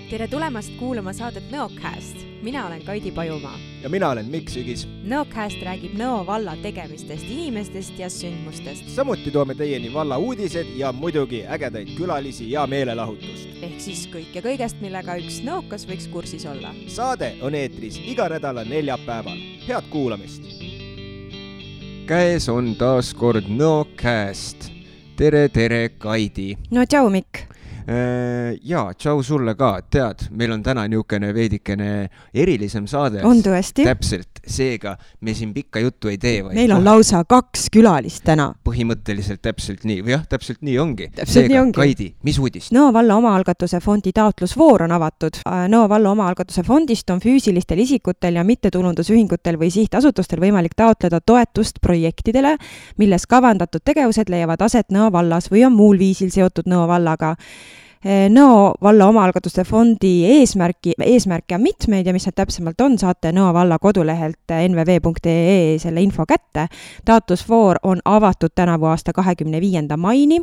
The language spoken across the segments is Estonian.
Tere tulemast kuulama saadet Nõocast. Mina olen Kaidi Pajumaa. Ja mina olen Mikk Sügis. Nõocast räägib Nõo valla tegemistest, inimestest ja sündmustest. Samuti toome teieni valla uudised ja muidugi ägedaid külalisi ja meelelahutust. Ehk siis kõik ja kõigest, millega üks nõokas võiks kursis olla. Saade on eetris iga nädala neljapäeval. Head kuulamist! Käes on taas kord Nõocast. Tere, Kaidi! No tšau, Mikk! Jaa, tšau sulle ka, tead, meil on täna niisugune veidikene erilisem saade. On tõesti? Täpselt, seega me siin pikka juttu ei tee. Meil on lausa 2 külalist täna. Põhimõtteliselt täpselt nii, või jah, täpselt nii ongi. Seega, Kaidi, mis uudist? Nõo valla omaalgatuse fondi taotlusvoor on avatud. Nõo valla omaalgatuse fondist on füüsilistel isikutel ja mittetulundusühingutel või sihtasutustel võimalik taotleda toetust projektidele, milles kavandatud tegevused leiavad aset Nõo vallas või on muul viisil seotud Nõo vallaga. Nõo valla omaalgatuste fondi eesmärke on mitmeid ja mis need täpsemalt on, saate Nõo valla kodulehelt nvv.ee selle info kätte. Taotlusvoor on avatud tänavu aasta 25. maini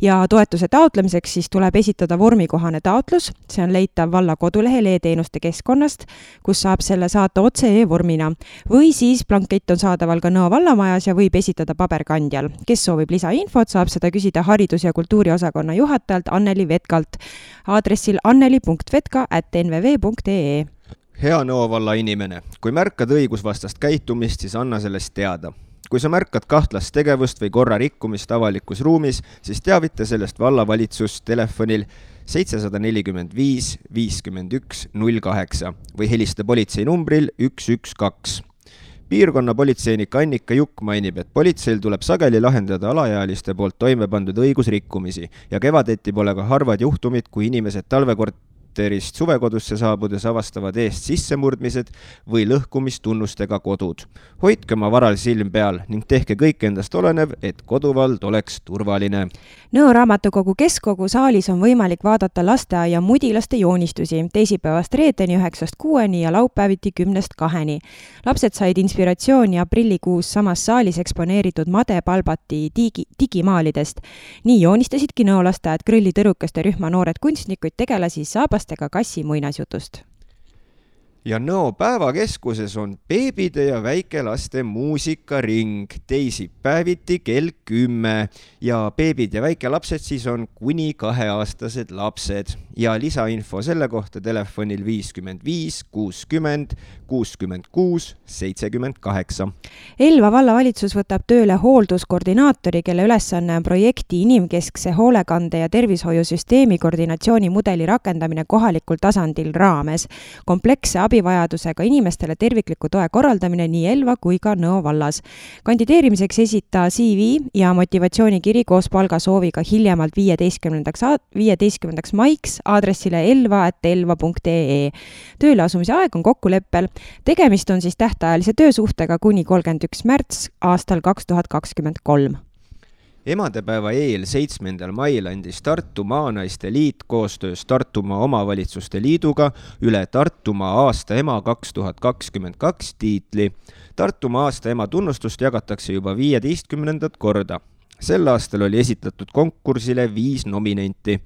ja toetuse taotlemiseks siis tuleb esitada vormikohane taotlus. See on leitav valla kodulehel e-teenuste keskkonnast, kus saab selle saata otse e-vormina. Või siis blankett on saadaval ka Nõo vallamajas ja võib esitada paberkandjal. Kes soovib lisainfot, saab seda küsida haridus- ja kultuuriosakonna juhatajalt Anneli Vetkalt aadressil anneli.vetka@nvv.ee. Hea Nõo valla inimene, kui märkad õigusvastast käitumist, siis anna sellest teada. Kui sa märkad kahtlast tegevust või korra rikkumist avalikus ruumis, siis teavita sellest vallavalitsust telefonil 745 51 08 või helista politsei numbril 112. Piirkonna politseinik Annika Jukk mainib, et politseil tuleb sageli lahendada alaealiste poolt toime pandud õigusrikkumisi ja kevadeti pole ka harvad juhtumid, kui inimesed talvekorterist suvekodusse saabudes avastavad eest sissemurdmised või lõhkumistunnustega kodud. Hoidke oma varal silm peal ning tehke kõik endast olenev, et koduvald oleks turvaline. Nõo raamatukogu keskkogu saalis on võimalik vaadata lasteaia mudilaste joonistusi teisipäevast reedeni 9-6 ja laupäeviti 10-2. Lapsed said inspiratsiooni aprillikuus samas saalis eksponeeritud Made Palbati digimaalidest. Nii joonistasidki Nõo lasteaed grillitõrukeste rühma noored kunstnikuid tegelasi saabastega kassi muinasjutust. Ja Nõo päevakeskuses on beebide ja väikelaste muusikaring teisipäeviti kell 10 ja beebid ja väikelapsed siis on kuni 2-aastased lapsed ja lisainfo selle kohta telefonil 55 60 66 78. Elva vallavalitsus võtab tööle hoolduskoordinaatori, kelle ülesanne on projekti inimkeskse hoolekande ja tervishoiusüsteemi koordinatsioonimudeli rakendamine kohalikul tasandil raames. Kompleksse abivajadusega inimestele tervikliku toe korraldamine nii Elva kui ka Nõo vallas. Kandideerimiseks esita CV ja motivatsioonikiri koos palgasooviga hiljemalt 15. maiks aadressile elva@elva.ee. Tööle asumise aeg on kokkuleppel. Tegemist on siis tähtajalise töösuhtega kuni 31. märts aastal 2023. Emadepäeva eel 7. mail andis Tartu Maanaiste Liit koostöös Tartumaa Omavalitsuste Liiduga üle Tartumaa aasta ema 2022 tiitli. Tartumaa aasta ema tunnustust jagatakse juba 15. korda. Sel aastal oli esitatud konkursile 5 nominenti.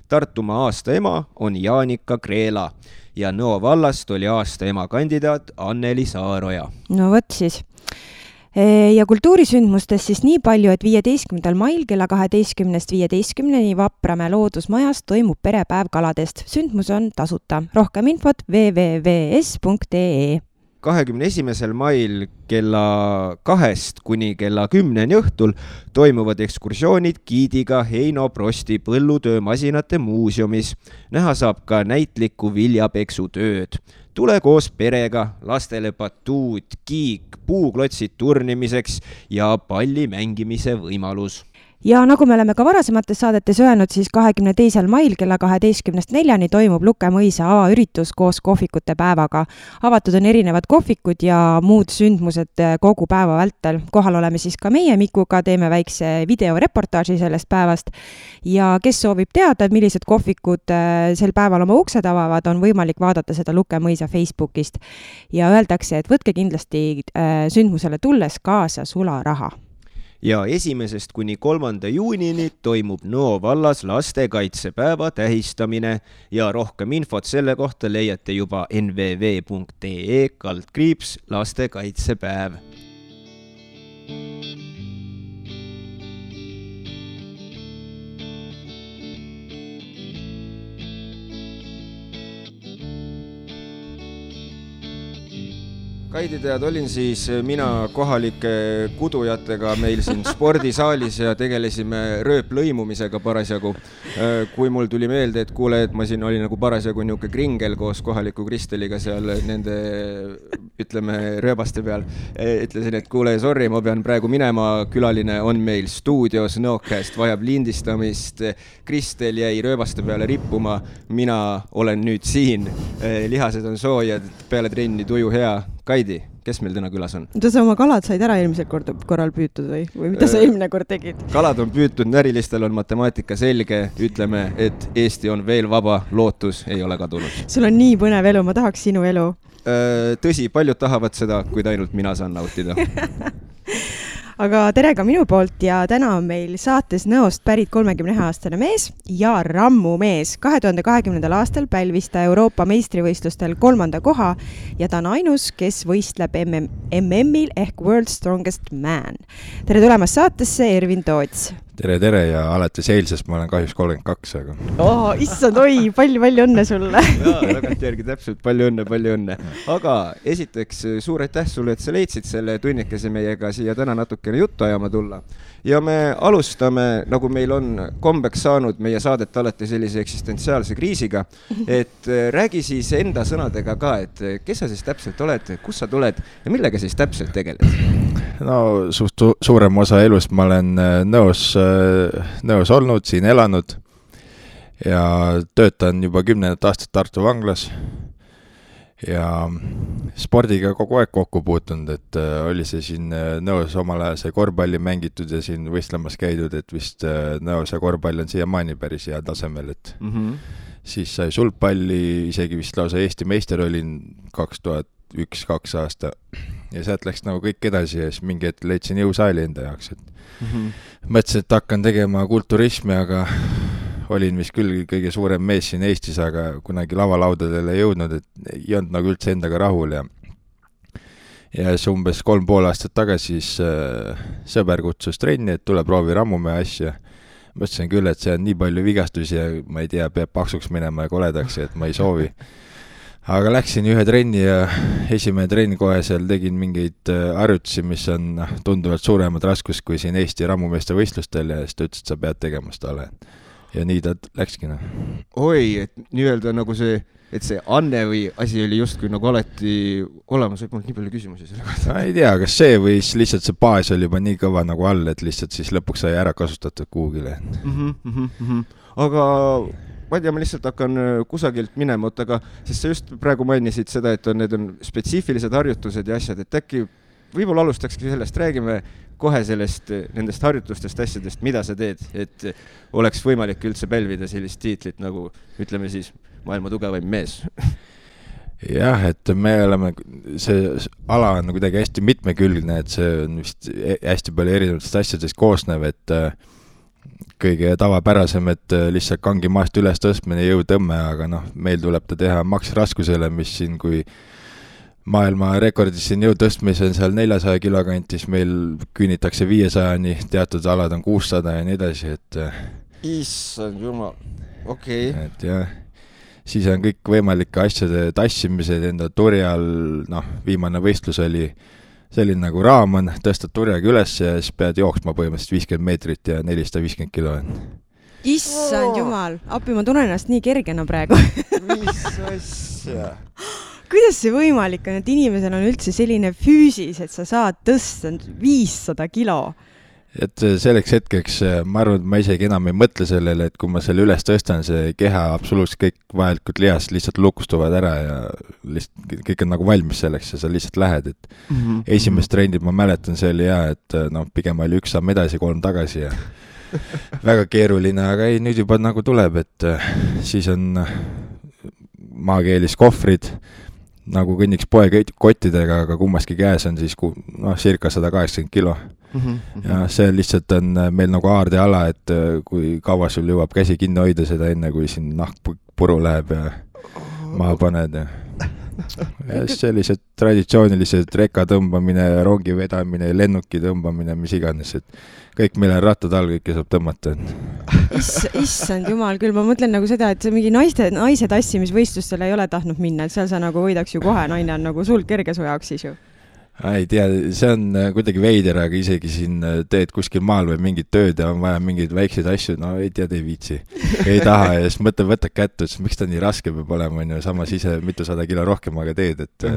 Tartumaa aasta ema on Jaanika Kreela ja Nõo vallast oli aasta ema kandidaat Anneli Saaroja. No võt siis. Ja kultuurisündmustest siis nii palju, et 15. mail kella 12-15 Vapramäe loodusmajas toimub perepäev kaladest. Sündmus on tasuta. Rohkem infot www.es.ee. 21. mail kella 2 kuni kella 10 õhtul toimuvad ekskursioonid giidiga Heino Prosti põllutöömasinate muuseumis. Näha saab ka näitlikku viljapeksutööd. Tule koos perega, lastele batuut, kiik, puuklotsid turnimiseks ja palli mängimise võimalus. Ja nagu me oleme ka varasemates saadetes öelnud, siis 22. mail kella 12-4 toimub Luke mõisa avaüritus koos kohvikute päevaga. Avatud on erinevad kohvikud ja muud sündmused kogu päeva vältel. Kohal oleme siis ka meie Mikuga, teeme väikse videoreportaaži sellest päevast. Ja kes soovib teada, millised kohvikud sel päeval oma uksed avavad, on võimalik vaadata seda Luke mõisa Facebookist. Ja öeldakse, et võtke kindlasti sündmusele tulles kaasa sularaha. ja 1. kuni 3. juunini toimub Nõo vallas lastekaitsepäeva tähistamine ja rohkem infot selle kohta leiate juba nvv.ee/lastekaitsepäev. Kaidi, tead, olin siis mina kohalike kudujatega meil siin spordisaalis ja tegelesime rööplõimumisega parasjagu. Kui mul tuli meelde, et kuule, et ma siin olin nagu parasjagu niuke kringel koos kohaliku Kristeliga seal nende, ütleme, rööbaste peal. Ütlesin, et kuule, sorry, ma pean praegu minema, külaline on meil stuudios, Nõokast vajab lindistamist. Kristel jäi rööbaste peale rippuma, mina olen nüüd siin, lihased on soojad, peale trenni tuju hea. Kaidi, kes meil täna külas on? Mida sa oma kalad said ära eelmisel korral püütud või mida sa eelmine kord tegid? Kalad on püütud, närilistel on matemaatika selge, ütleme, et Eesti on veel vaba, lootus ei ole kadunud. Sul on nii põnev elu, ma tahaks sinu elu. Tõsi, paljud tahavad seda, kuid ainult mina saan nautida. Aga tere ka minu poolt ja täna on meil saates Nõost pärit 31-aastane mees ja rammumees. 2020. aastal pälvis ta Euroopa meistrivõistlustel 3. koha ja ta on ainus, kes võistleb MM-il ehk World Strongest Man. Tere tulemast saatesse, Ervin Toots. Tere ja alates eilsest ma olen kahjuks 32, aga... Issand, palju õnne sulle! Tagantjärgi täpselt, palju õnne. Aga esiteks suur aitäh sulle, et sa leidsid selle tunnikese meiega siia täna natukene juttu ajama tulla. Ja me alustame, nagu meil on kombeks saanud meie saadet alati sellise eksistentsiaalse kriisiga, et räägi siis enda sõnadega ka, et kes sa siis täpselt oled, kus sa tuled ja millega siis täpselt tegeled? No suurem osa elust ma olen Nõos olnud, siin elanud ja töötan juba 10 aastat Tartu vanglas ja spordiga kogu aeg kokku puutunud, et oli see siin Nõos omal ajal see korvpalli mängitud ja siin võistlemas käidud, et vist Nõos ja korvpall on siiamaani päris hea tasemel, et siis sai sulgpalli, isegi vist lausa Eesti meister olin 2001-2 aasta ja sealt läks nagu kõik edasi ja siis mingi hetk leidsin jõusaali enda jaoks, et mõtlesin, et hakkan tegema kulturismi, aga olin vist küll kõige suurem mees siin Eestis, aga kunagi lavalaudadele jõudnud, et ei olnud nagu üldse endaga rahul ja siis umbes 3,5 aastat tagasi siis sõber kutsus trenni, et tule proovi rammumehe asja. Mõtlesin küll, et see on nii palju vigastusi ja ma ei tea, peab paksuks minema ja koledaks, et ma ei soovi. Aga läksin ühe trenni ja esimene trenn kohe seal tegin mingeid harjutusi, mis on tunduvalt suuremad raskus kui siin Eesti rammumeeste võistlustel ja siis ta ütles, et sa pead tegema seda ole. Ja nii ta läkskina. Oi, et nii-öelda nagu see, et see anne või asi oli justkui nagu alati olemas, võib mul nii palju küsimusi selle kohta. Ma ei tea, kas see või lihtsalt see baas oli juba nii kõva nagu all, et lihtsalt siis lõpuks sai ära kasutatud kuhugile. Aga ma ei tea, ma lihtsalt hakkan kusagilt minema, aga sest sa just praegu mainisid seda, et need on spetsiifilised harjutused ja asjad, et äkki võib-olla alustakski sellest, räägime kohe nendest harjutustest asjadest, mida sa teed, et oleks võimalik üldse pälvida sellist tiitlit nagu, ütleme siis, maailma tugevaim mees. Jah, et me oleme, see ala on kuidagi hästi mitmekülgne, et see on vist hästi palju erinevatest asjadest koosnev, et kõige tavapärasem, et lihtsalt kangi maast üles tõstmine jõutõmme, aga meil tuleb ta teha maksraskusele, mis siin kui maailma rekordis siin jõutõstmise on seal 400 kilo kantis, meil küünitakse 500-ni, teatud alad on 600 ja nii edasi, et issand jumal, okei. Et jah, siis on kõik võimalike asjade tassimised enda turjal, viimane võistlus oli selline nagu raam on, tõstad turjaga üles ja siis pead jooksma põhimõtteliselt 50 meetrit ja 450 kilo. Issand jumal, appi, ma tunnen ennast nii kergena praegu. Mis asja? Kuidas see võimalik on, et inimesel on üldse selline füüsis, et sa saad tõsta 500 kilo? Et selleks hetkeks, ma arvan, et ma isegi enam ei mõtle sellele, et kui ma selle üles tõstan, see keha absoluutselt kõik vajalikud lihast lihtsalt lukustuvad ära ja lihtsalt kõik on nagu valmis selleks ja sa lihtsalt lähed, et esimest trendid ma mäletan, see oli hea, et pigem oli 1 samm edasi, 3 tagasi ja väga keeruline, aga ei, nüüd juba nagu tuleb, et siis on maakeelis kohvrid, nagu kõnniks poekottidega, aga kummaski käes on siis circa 180 kilo. ja see lihtsalt on meil nagu aardeala, et kui kaua sul jõuab käsi kinni hoida seda enne, kui siin nahk puru läheb ja maha paned ja sellised traditsioonilised reka tõmbamine, rongi vedamine, lennuki tõmbamine, mis iganes, et kõik meil on rattad all, kõike saab tõmmata. Issand jumal küll, ma mõtlen nagu seda, et see mingi naise tassimisvõistlustel ei ole tahtnud minna, et seal sa nagu võidaks ju kohe, naine on nagu sul kerge su jaoks siis ju. Ei tea, see on kuidagi veider, aga isegi siin teed kuskil maal või mingid tööd ja on vaja mingeid väikseid asju, no ei tea, ei viitsi, ei taha ja siis võtad kätte, et miks ta nii raske peab olema, on ju, samas ise mitusada kilo rohkem aga teed, et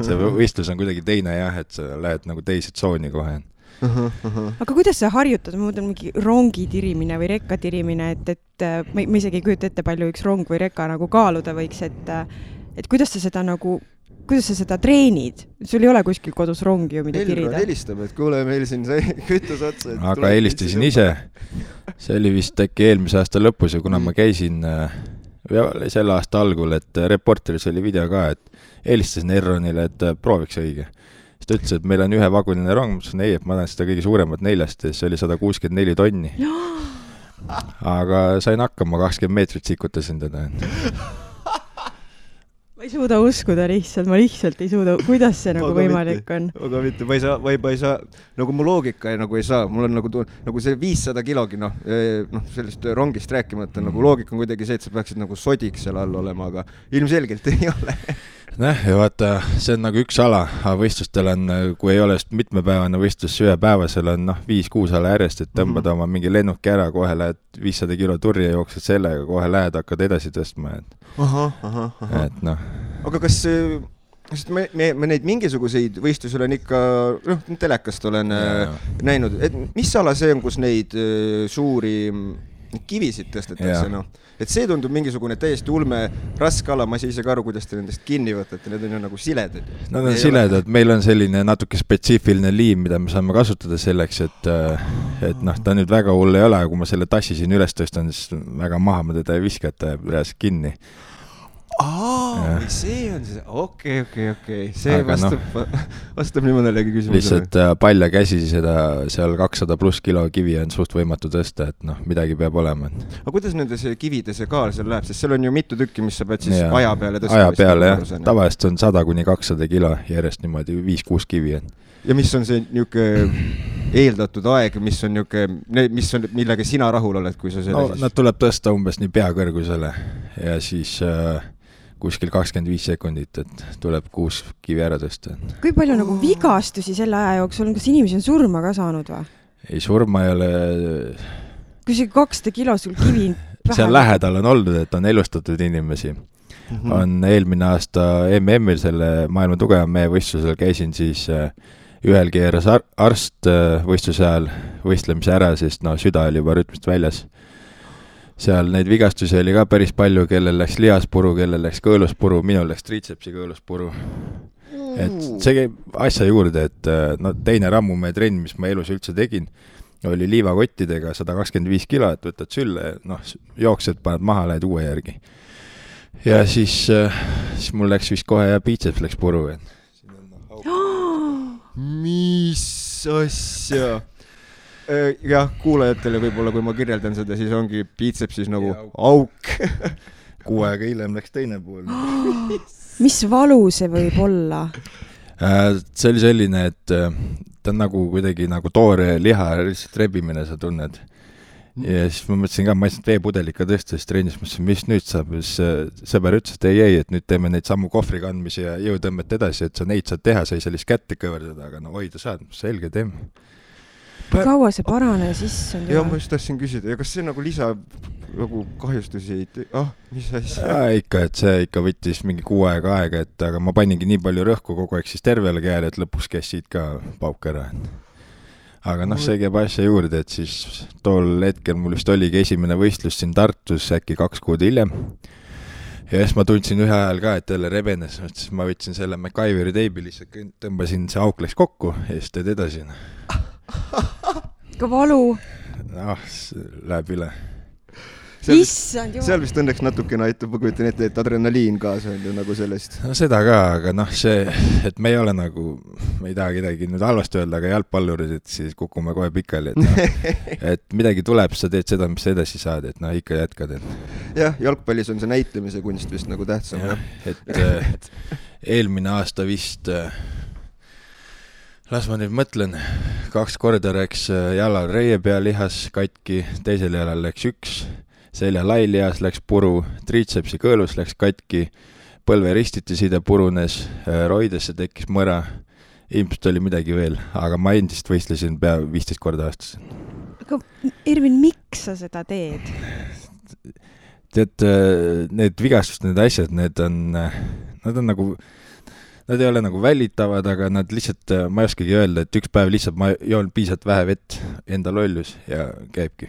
see võistlus on kuidagi teine jah, et sa lähed nagu teise tsooni kohe. Aga kuidas sa harjutad, ma mõtlen mingi rongi tirimine või rekka tirimine, et ma isegi ei kujuta ette palju üks rong või rekka nagu kaaluda võiks, et kuidas sa seda treenid? Sul ei ole kuskil kodus rongi ju, mida tirida? Elron helistab, et kuule, meil siin sai kütus otsa. Aga helistasin ise. See oli vist äkki eelmise aasta lõpus ja kuna ma käisin selle aasta algul, et Reporteris oli video ka, et helistasin Elronile, et prooviks õige. Siis ta ütles, et meil on ühe vagunine rong, ei, et ma tahan seda kõige suuremat 4, see oli 164 tonni. Aga sain hakkama, 20 meetrit sikutasin teda. Ma ei suuda uskuda ma lihtsalt ei suuda, kuidas see nagu võimalik on. Aga mitte, ma ei saa, nagu mu loogika nagu ei saa, mul on nagu see 500 kilogi, sellest rongist rääkimata, nagu loogika on kuidagi see, et sa peaksid nagu sodiks seal all olema, aga ilmselgelt ei ole. Ja vaata, see on nagu üks ala, aga võistlustel on, kui ei ole mitmepäevane võistlus ühepäevasel on 5-6 ala järjest, et tõmbad oma mingi lennuki ära, kohe lähed 500 kilo turja, jooksed sellega, kohe lähed, hakkad edasi tõstma. Et noh. Aga kas me neid mingisuguseid võistlusi olen ikka, telekast olen näinud, et mis ala see on, kus neid suuri kivisid tõstetakse, Et see tundub mingisugune täiesti ulme raske ala, ma ei saa ise ka aru, kuidas te nendest kinni võtate, need on ju nagu siledad. Nad on siledad, meil on selline natuke spetsiifiline liim, mida me saame kasutada selleks, et ta nüüd väga hull ei ole, kui ma selle tassi siin üles tõstan, siis väga maha ma teda ei viska, et ta jääb reaalselt kinni. See on see, okei. See vastab nii mõnelegi küsimusele. Lihtsalt palja käsi seda seal 200 pluss kilo kivi on suht võimatu tõsta, et midagi peab olema. Aga kuidas nende see kivide see kaal seal läheb, sest seal on ju mitu tükki, mis sa pead siis aja peale tõsta? Aja peale, jah. Tavaliselt on 100-200 kilo järjest niimoodi 5-6 kivi. Ja mis on see niisugune eeldatud aeg, millega sina rahul oled, kui sa selle Nad tuleb tõsta umbes nii peakõrgusele ja siis kuskil 25 sekundit, et tuleb 6 kivi ära tõsta. Kui palju nagu vigastusi selle aja jooksul, kas inimesi on surma ka saanud või? Ei, surma ei ole. Kui see 200 kilo sul kivi seal lähedal on olnud, et on elustatud inimesi. On eelmine aasta MM-il selle maailma tugeva mehe võistlusel käisin siis ühel keeras arst võistluse ajal võistlemise ära, sest süda oli juba rütmist väljas. Seal neid vigastusi oli ka päris palju, kellel läks lihaspuru, kellel läks kõõluspuru, minul läks triitsepsi kõõluspuru. Et see käib asja juurde, et teine rammumehe trenn, mis ma elus üldse tegin, oli liivakottidega 125 kilo, et võtad sülle, jooksed, paned maha, lähed uue järgi. Ja siis mul läks vist kohe ja biitseps läks puru. Mis asja? Jah, kuulajatele võib-olla, kui ma kirjeldan seda, siis ongi biitsepsis nagu auk. Kuu aega hiljem läks teine pool. Mis valu see võib olla? See oli selline, et ta on nagu kuidagi nagu toore liha lihtsalt rebimine, sa tunned. Ja siis ma mõtlesin ka, ma ei saanud veepudelika tõsta, siis trennis mõtlesin, mis nüüd saab. Sõber ütles, et ei, et nüüd teeme neid sammu kohvri kandmisi ja jõutõmmet edasi, et sa neid saad teha, sa ei saa lihtsalt kätte kõverdada, aga hoida saad, selge teeme. Kaua see parane siis on? Ja ma just tahtsin küsida, ja kas see nagu lisa nagu kahjustusi mis asja? Ikka, et see ikka võttis mingi 6 aega, et aga ma paningi nii palju rõhku kogu aeg siis tervele käele, et lõpus käis siit ka pauk ära. Aga see käib asja juurde, et siis tol hetkel mul vist oligi esimene võistlus siin Tartus äkki 2 kuud hiljem. Ja siis ma tundsin ühe ajal ka, et jälle rebenes, siis ma võtsin selle MacGyveri teibi, lihtsalt tõmbasin, see auk läks kokku ja siis teed edasi. Ka valu? Läheb üle. Issand jumal. Seal vist õnneks natukene aitab, ma kujutan ette, et adrenaliin kaasa on ju nagu sellest. No seda ka, aga noh, see, et me ei ole nagu, me ei taha kedagi nüüd halvasti öelda, aga jalgpallurid, et siis kukume kohe pikali, et, no, et midagi tuleb, sa teed seda, mis sa edasi saad, et noh, ikka jätkad. Jah, jalgpallis on see näitlemise kunst vist nagu tähtsam. Ja, et eelmine aasta vist... Las ma nüüd mõtlen, 2 korda läks jalal reie pea lihas katki, teisel jalal läks 1, selja lailihas läks puru, triitsepsi kõõlus läks katki, põlve ristiti side purunes, roidesse tekkis mõra, ilmselt oli midagi veel, aga ma endist võistlesin pea 15 korda aastas. Aga Irvin, miks sa seda teed? Tead, need vigastust, need asjad, nad on nagu... Nad ei ole nagu välitavad, aga nad lihtsalt, ma ei oskagi öelda, et üks päev lihtsalt ma joon piisavalt vähe vett, enda lollus ja käibki.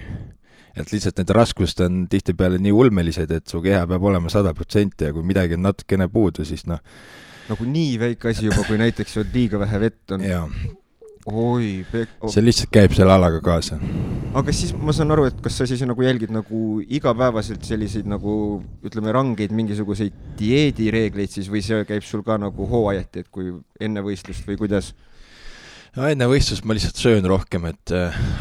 Et lihtsalt need raskused on tihtipeale nii ulmelised, et su keha peab olema 100% ja kui midagi on natukene puudu, siis noh... Nagu nii väike asi juba, kui näiteks liiga vähe vett on. Jaa. Oi, see lihtsalt käib selle alaga kaasa. Aga siis ma saan aru, et kas sa siis nagu jälgid nagu igapäevaselt selliseid nagu, ütleme, rangeid mingisuguseid dieedireegleid siis või see käib sul ka nagu hooajati, et kui enne võistlust või kuidas? No enne võistlust ma lihtsalt söön rohkem,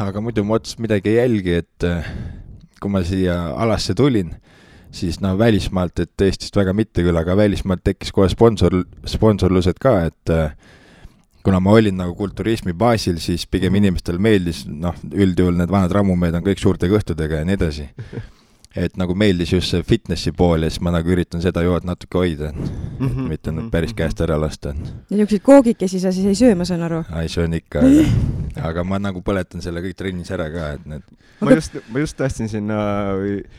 aga muidu ma otsast midagi ei jälgi, et kui ma siia alasse tulin, siis välismaalt, et Eestist väga mitte küll, aga välismaalt tekkis kohe sponsorlused ka, et kuna ma olin nagu kulturismi baasil, siis pigem inimestel meeldis, üldjuhul need vanad rammumehed on kõik suurte kõhtudega ja nii edasi. Et nagu meeldis just see fitnessi pool ja siis ma nagu üritan seda jood natuke hoida, mitte päris käest ära lasta. Ja niisuguseid koogikesi sa siis ei söö, ma saan aru? Ei söön ikka, aga ma nagu põletan selle kõik trennis ära ka. Et need... ma just tahtsin sinna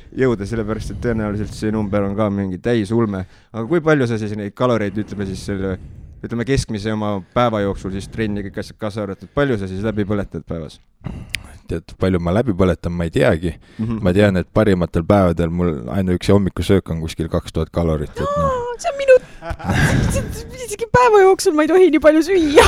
jõuda, sellepärast, et tõenäoliselt see number on ka mingi täisulme. Aga kui palju sa siis neid kaloreid, ütleme keskmise oma päeva jooksul siis trenni kõik asjad kaasa arvatud, palju sa siis läbi põletad päevas? Tead, palju ma läbi põletan, ma ei teagi. Ma tean, et parimatel päevadel mul ainuüksi hommikusöök on kuskil 2000 kalorit. Et no... See on minu... Isegi päeva jooksul ma ei tohi nii palju süüa.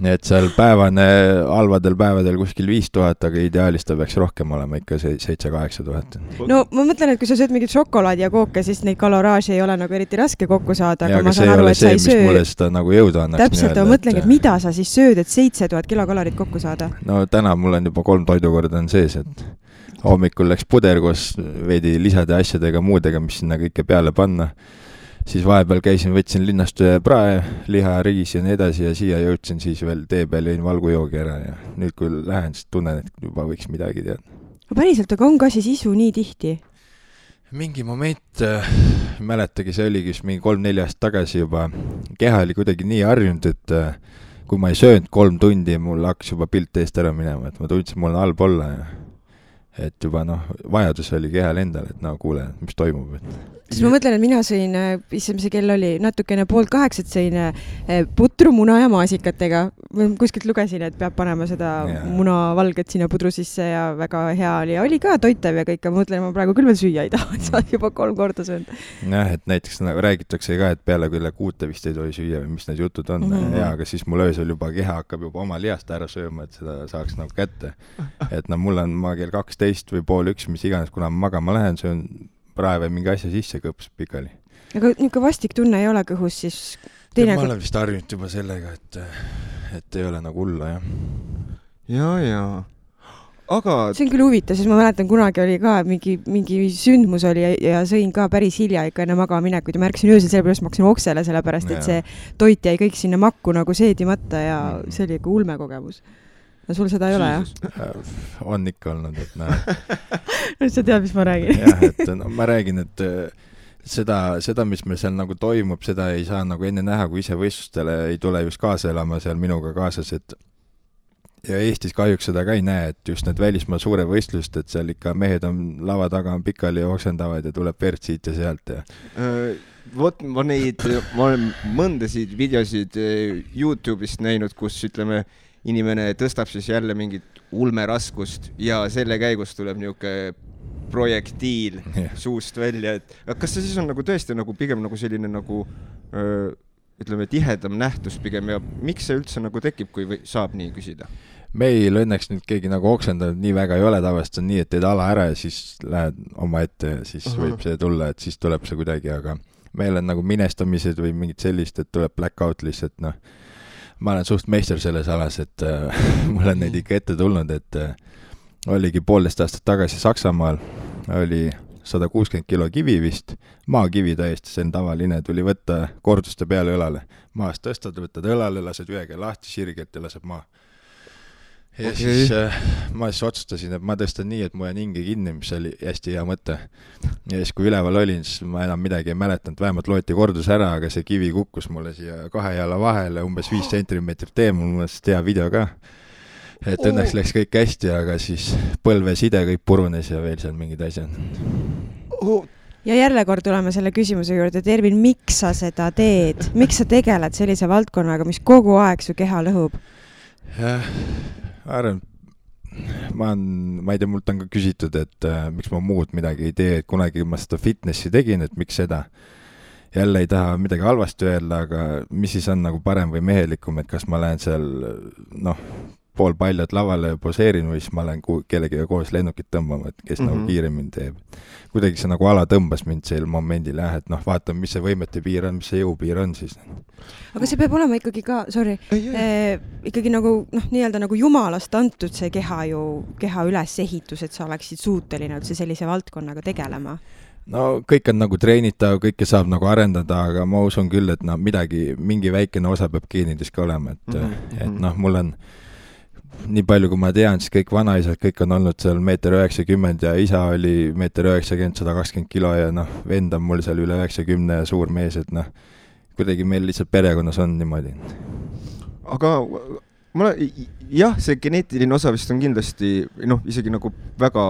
Nii et seal halvadel päevadel kuskil 5000, aga ideaalis ta peaks rohkem olema ikka 7-8 000. No ma mõtlen, et kui sa sööd mingit šokolaadi ja kooke, siis neid kaloraaži ei ole nagu eriti raske kokku saada. Ja, aga see ei ole see, mis mulle seda nagu jõuda annaks. Täpselt, ma mõtlengi, et mida sa siis sööd, et 7000 kilokalorit kokku saada? No täna mul on juba 3 toidukorda on sees, et hommikul läks puder koos veidi lisade asjadega, muudega, mis sinna kõike peale panna. Siis vahepeal võtsin linnast prae, liha, riis ja nii edasi ja siia jõudsin siis veel tee peal jõin valgujoogi ära ja nüüd kui lähen, siis tunnen, et juba võiks midagi teada. Päriselt, aga on ka siis isu nii tihti? Mingi moment, mäletagi, see oligi mingi 3-4 aastat tagasi juba, keha oli kuidagi nii harjunud, et kui ma ei söönud 3 tundi, mul hakkas juba pilt eest ära minema, et ma tundsin, mul on halb olla ja et juba vajadus oli kehal endal, et kuule, mis toimub. Siis ma mõtlen, et mina sõin, see kell oli natukene 7:30, sõin putru, muna ja maasikatega. Kuskilt lugesin, et peab panema seda munavalget sinna pudru sisse ja väga hea oli. Ja oli ka toitev ja kõik, ma mõtlen, ma praegu küll veel süüa ei taha, et sa juba 3 korda söönud. Jah, et näiteks räägitakse ka, et peale küll 6 vist ei tohi süüa või mis need jutud on. Ja, aga siis mul öösel juba keha hakkab juba oma lihast ära sööma, et seda saaks nagu kätte. Et mul on ma kell 12 või pool 1, mis iganes, kuna ma magama lähen, söön prae või mingi asja sisse kõps pikali. Aga niisugune vastik tunne ei ole kõhus siis? Ma olen vist harjunud juba sellega, et ei ole nagu hulla, jah. Ja. Aga... See on küll huvitav, siis ma mäletan, kunagi oli ka mingi sündmus oli ja sõin ka päris hilja ikka enne magaminekut ja märksin öösel sellepärast, ma hakkasin oksele sellepärast, et see toit jäi kõik sinna makku nagu seedimata ja see oli ikka ulme kogemus. No sul seda ei ole, jah? On ikka olnud, et Nüüd sa tead, mis ma räägin. Jah, et ma räägin, et seda, mis meil seal nagu toimub, seda ei saa nagu enne näha, kui ise võistlustele ei tule just kaasa elama seal minuga kaasas, et ja Eestis kahjuks seda ka ei näe, et just need välismaa suure võistlust, et seal ikka mehed on lava taga on pikali ja oksendavad ja tuleb verd siit ja sealt ja... ma olen mõndasid videosid YouTube'ist näinud, kus ütleme inimene tõstab siis jälle mingit ulmeraskust ja selle käigus tuleb niisugune projektiil suust välja, et kas see siis on nagu tõesti nagu pigem nagu selline nagu ütleme tihedam nähtus pigem ja miks see üldse nagu tekib, kui saab nii küsida? meil õnneks nüüd keegi nagu oksendanud nii väga ei ole, tavaliselt on nii, et teed ala ära ja siis lähed oma ette ja siis võib see tulla, et siis tuleb see kuidagi, aga meil on nagu minestamised või mingid sellist, et tuleb blackout lihtsalt, noh, ma olen suht meister selles alas, et mul on neid ikka ette tulnud, et oligi 1,5 aastat tagasi Saksamaal, oli 160 kilo kivi vist, maakivi täiesti, see on tavaline, tuli võtta korduste peale õlale, maast tõstad, võtad õlale, lased ühega lahti sirgelt ja laseb maa. Ja siis ma siis otsustasin, et ma tõstan nii, et mu jään hinge kinni, mis oli hästi hea mõte. Ja siis kui üleval olin, siis ma enam midagi ei mäletanud, vähemalt loeti kordus ära, aga see kivi kukkus mulle siia 2 jala vahele, umbes 5 sentimeetrit mul mõttes hea video ka. Et õnneks läks kõik hästi, aga siis põlveside kõik purunes ja veel seal mingid asjad. Ja jälle kord tuleme selle küsimuse juurde, Ervin, miks sa seda teed? Miks sa tegeled sellise valdkonnaga, mis kogu aeg su keha lõhub? Jah, arvan, ma ei tea, mult on ka küsitud, et miks ma muud midagi ei tee, et kunagi ma seda fitnessi tegin, et miks seda. Jälle ei taha midagi halvasti öelda, aga mis siis on nagu parem või mehelikum, et kas ma lähen seal, pool paljad lavale poseerin või siis ma lähen kellegiga koos lennukit tõmbama, et kes nagu kiiremini teeb. Kuidagi see nagu ala tõmbas mind sel momendil, et vaatame, mis see võimete piir on, mis see jõupiir on siis. Aga see peab olema ikkagi ka, ikkagi nagu, nii-öelda nagu jumalast antud see keha ülesehitus, et sa oleksid suuteline üldse sellise valdkonnaga tegelema. No kõik on nagu treenitav, kõike saab nagu arendada, aga ma usun küll, et mingi väikene osa peab geenides ka olema, et mul on nii palju, kui ma tean, siis kõik vanaisad, kõik on olnud seal 1,90 m ja isa oli 1,90 m, 120 kilo ja vend on mul seal üle 90 ja suur mees, et kuidagi meil lihtsalt perekonnas on niimoodi. Aga jah, see geneetiline osa vist on kindlasti, isegi nagu väga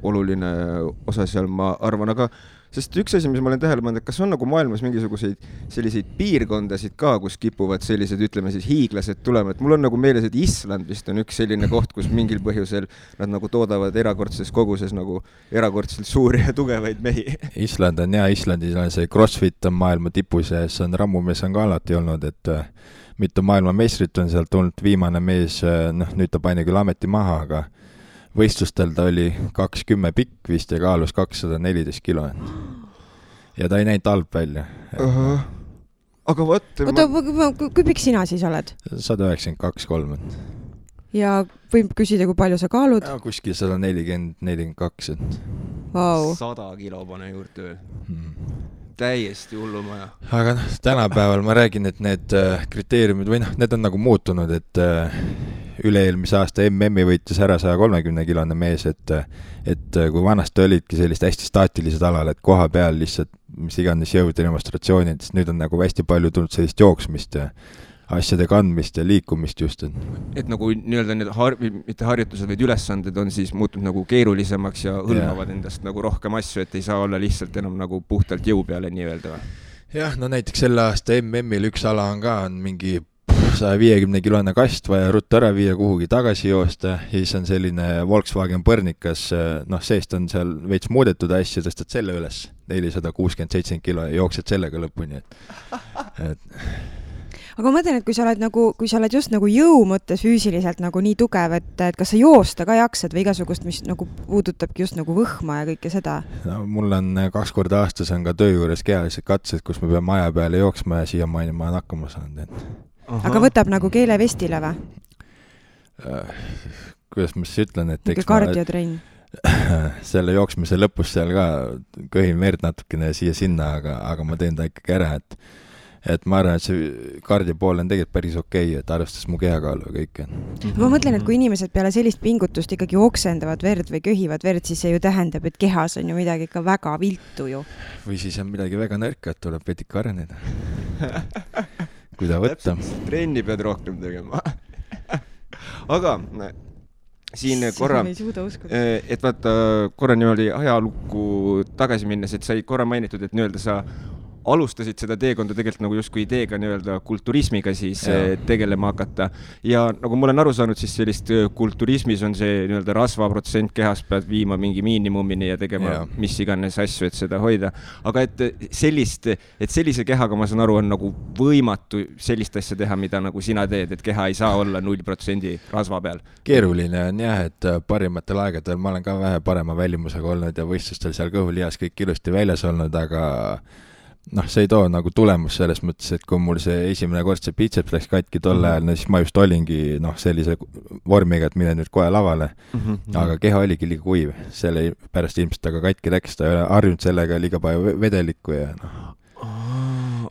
oluline osa seal, ma arvan, aga sest üks asi, mis ma olen tähele pannud, et kas on nagu maailmas mingisuguseid selliseid piirkondasid ka, kus kipuvad sellised, ütleme siis hiiglased tulema, et mul on nagu meeles, et Island vist on üks selline koht, kus mingil põhjusel nad nagu toodavad erakordses koguses nagu erakordselt suuri ja tugevaid mehi. Island on Islandis on see CrossFit on maailma tipus ja see on rammumees on ka alati olnud, et mitu maailmameistrit on sealt tulnud, viimane mees, nüüd ta pani küll ameti maha, aga võistlustel ta oli 2,10 pikk vist ja kaalus 214 kilo. Ja ta ei näinud halb välja. Aga kui pikk sina siis oled? 192-3. Ja võib küsida, kui palju sa kaalud? Ja, kuskil 140-42. Wow. 100 kilo pane juurde. Täiesti hullumaja. Aga tänapäeval ma räägin, et need kriteeriumid või need on nagu muutunud, et üle-eelmise aasta MM-i võitis ära 130-kilone mees, et kui vanasti olidki sellist hästi staatilised alal, et koha peal lihtsalt mis iganes jõud ja demonstratsioonid, siis nüüd on nagu hästi palju tulnud sellist jooksmist ja asjade kandmist ja liikumist just. Et nagu nii-öelda need mitte harjutused, vaid ülesanded on siis muutunud nagu keerulisemaks ja hõlmavad endast nagu rohkem asju, et ei saa olla lihtsalt enam nagu puhtalt jõu peale nii-öelda. Jah, näiteks selle aasta MM-il üks ala on mingi 150-kilone kast vaja ruttu ära viia kuhugi tagasi joosta ja siis on selline Volkswagen Põrnikas, seest on seal veits muudetud asja, tõstad selle üles 467 kilo ja jooksed sellega lõpuni. Aga ma mõtlen, et kui sa oled just nagu jõu mõttes füüsiliselt nagu nii tugev, et kas sa joosta ka jaksad või igasugust, mis nagu puudutabki just nagu võhma ja kõike seda? No, mul on 2 korda aastas on ka töö juures kehalised katsed, kus me peame maja peale jooksma ja siiamaani ma olen hakkama saanud. Aga võtab nagu keelevestile või? Kuidas ma siis ütlen, et eks kardiotrenn. Selle jooksmise lõpus seal ka köhin verd natukene siia-sinna, aga ma teen ta ikkagi ära, et ma arvan, et see kardi pool on tegelikult päris okei, et arvestas mu kehakaalu ja kõike. Ma mõtlen, et kui inimesed peale sellist pingutust ikkagi oksendavad verd või köhivad verd, siis see ju tähendab, et kehas on ju midagi ikka väga viltu ju. Või siis on midagi väga nõrka, et tuleb vedik areneda. Kui ta võtta. Trenni pead rohkem tegema. Aga siin korra, et vaata korra niimoodi ajalukku tagasi minnes, et sai korra mainitud, et nii-öelda sa alustasid seda teekonda tegelikult nagu justkui ideega nii-öelda kulturismiga siis tegelema hakata. Ja nagu ma olen aru saanud, siis sellist kulturismis on see nii-öelda rasvaprotsent kehas pead viima mingi miinimumini ja tegema mis iganes asju, et seda hoida. Aga et sellise kehaga, ma saan aru, on nagu võimatu sellist asja teha, mida nagu sina teed, et keha ei saa olla 0% rasva peal. Keeruline on jah, et parimatel aegadel ma olen ka vähe parema välimusega olnud ja võistlustel seal kõhulihas kõik ilusti väljas olnud, aga see ei too nagu tulemus selles mõttes, et kui mul see esimene kord see biceps läks katki tol ajal, siis ma just olingi sellise vormiga, et mine nüüd kohe lavale. Aga keha oligi liiga kuiv, selle pärast ilmselt aga katki läks, ta ei ole harjunud sellega liiga palju vedelikku ja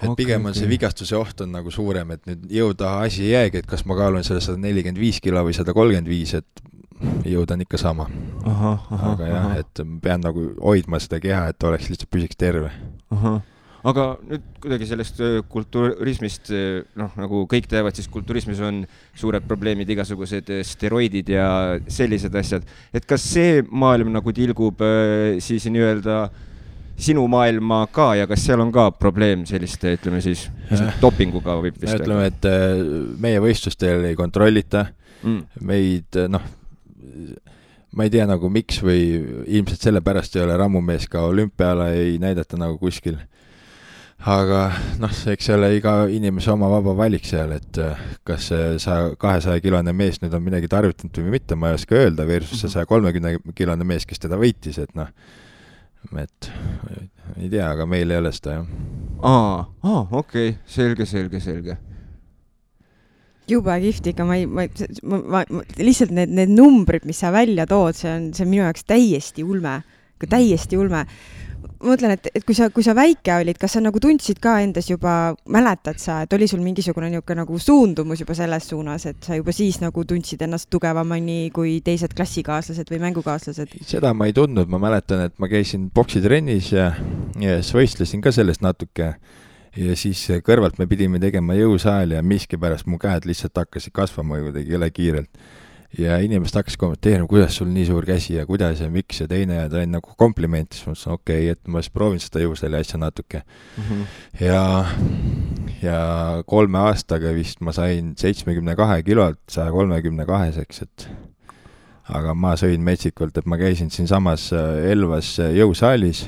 et pigem on see vigastuse oht on nagu suurem, et nüüd jõuda asi ei jäägi, et kas ma kaalun selle 145 kilo või 135, et jõuda on ikka sama. Aga jah, et pean nagu hoidma seda keha, et oleks lihtsalt püsiks terve. Aga nüüd kuidagi sellest kulturismist, nagu kõik teavad, siis kulturismis on suured probleemid, igasugused steroidid ja sellised asjad. Et kas see maailm nagu tilgub siis nii-öelda sinu maailma ka ja kas seal on ka probleem selliste, ütleme siis, dopinguga võib vist? Ütleme, et meie võistlustel ei kontrollita. Meid, ma ei tea nagu miks või ilmselt selle pärast ei ole rammumees ka olümpiala ei näidata nagu kuskil. Aga eks see ole iga inimese oma vaba valik seal, et kas see 200-kilone mees nüüd on midagi tarvitanud või mitte, ma ei oska öelda, versus see 130-kilone mees, kes teda võitis, et et ei tea, aga meil ei ole seda, jah. Okei, selge. Jube kihvt ikka, ma lihtsalt need numbrid, mis sa välja tood, see on minu jaoks täiesti ulme. Ma mõtlen, et kui sa väike olid, kas sa nagu tundsid ka endas juba, mäletad sa, et oli sul mingisugune nagu suundumus juba selles suunas, et sa juba siis nagu tundsid ennast tugevamani kui teised klassikaaslased või mängukaaslased? Seda ma ei tundnud, ma mäletan, et ma käisin boksitrennis ja siis võistlesin ka sellest natuke ja siis kõrvalt me pidime tegema jõusaali ja miskipärast mu käed lihtsalt hakkasid kasvama kuidagi jõle kiirelt. Ja inimesed hakkas kommenteerima, kuidas sul nii suur käsi ja kuidas ja miks ja teine ja ta on nagu kompliment, siis ma ütlesin, okei, et ma siis proovin seda jõusali asja natuke. Ja 3 aastaga vist ma sain 72 kilolt 132-seks, et aga ma sõin metsikult, et ma käisin siin samas Elvas jõusaalis,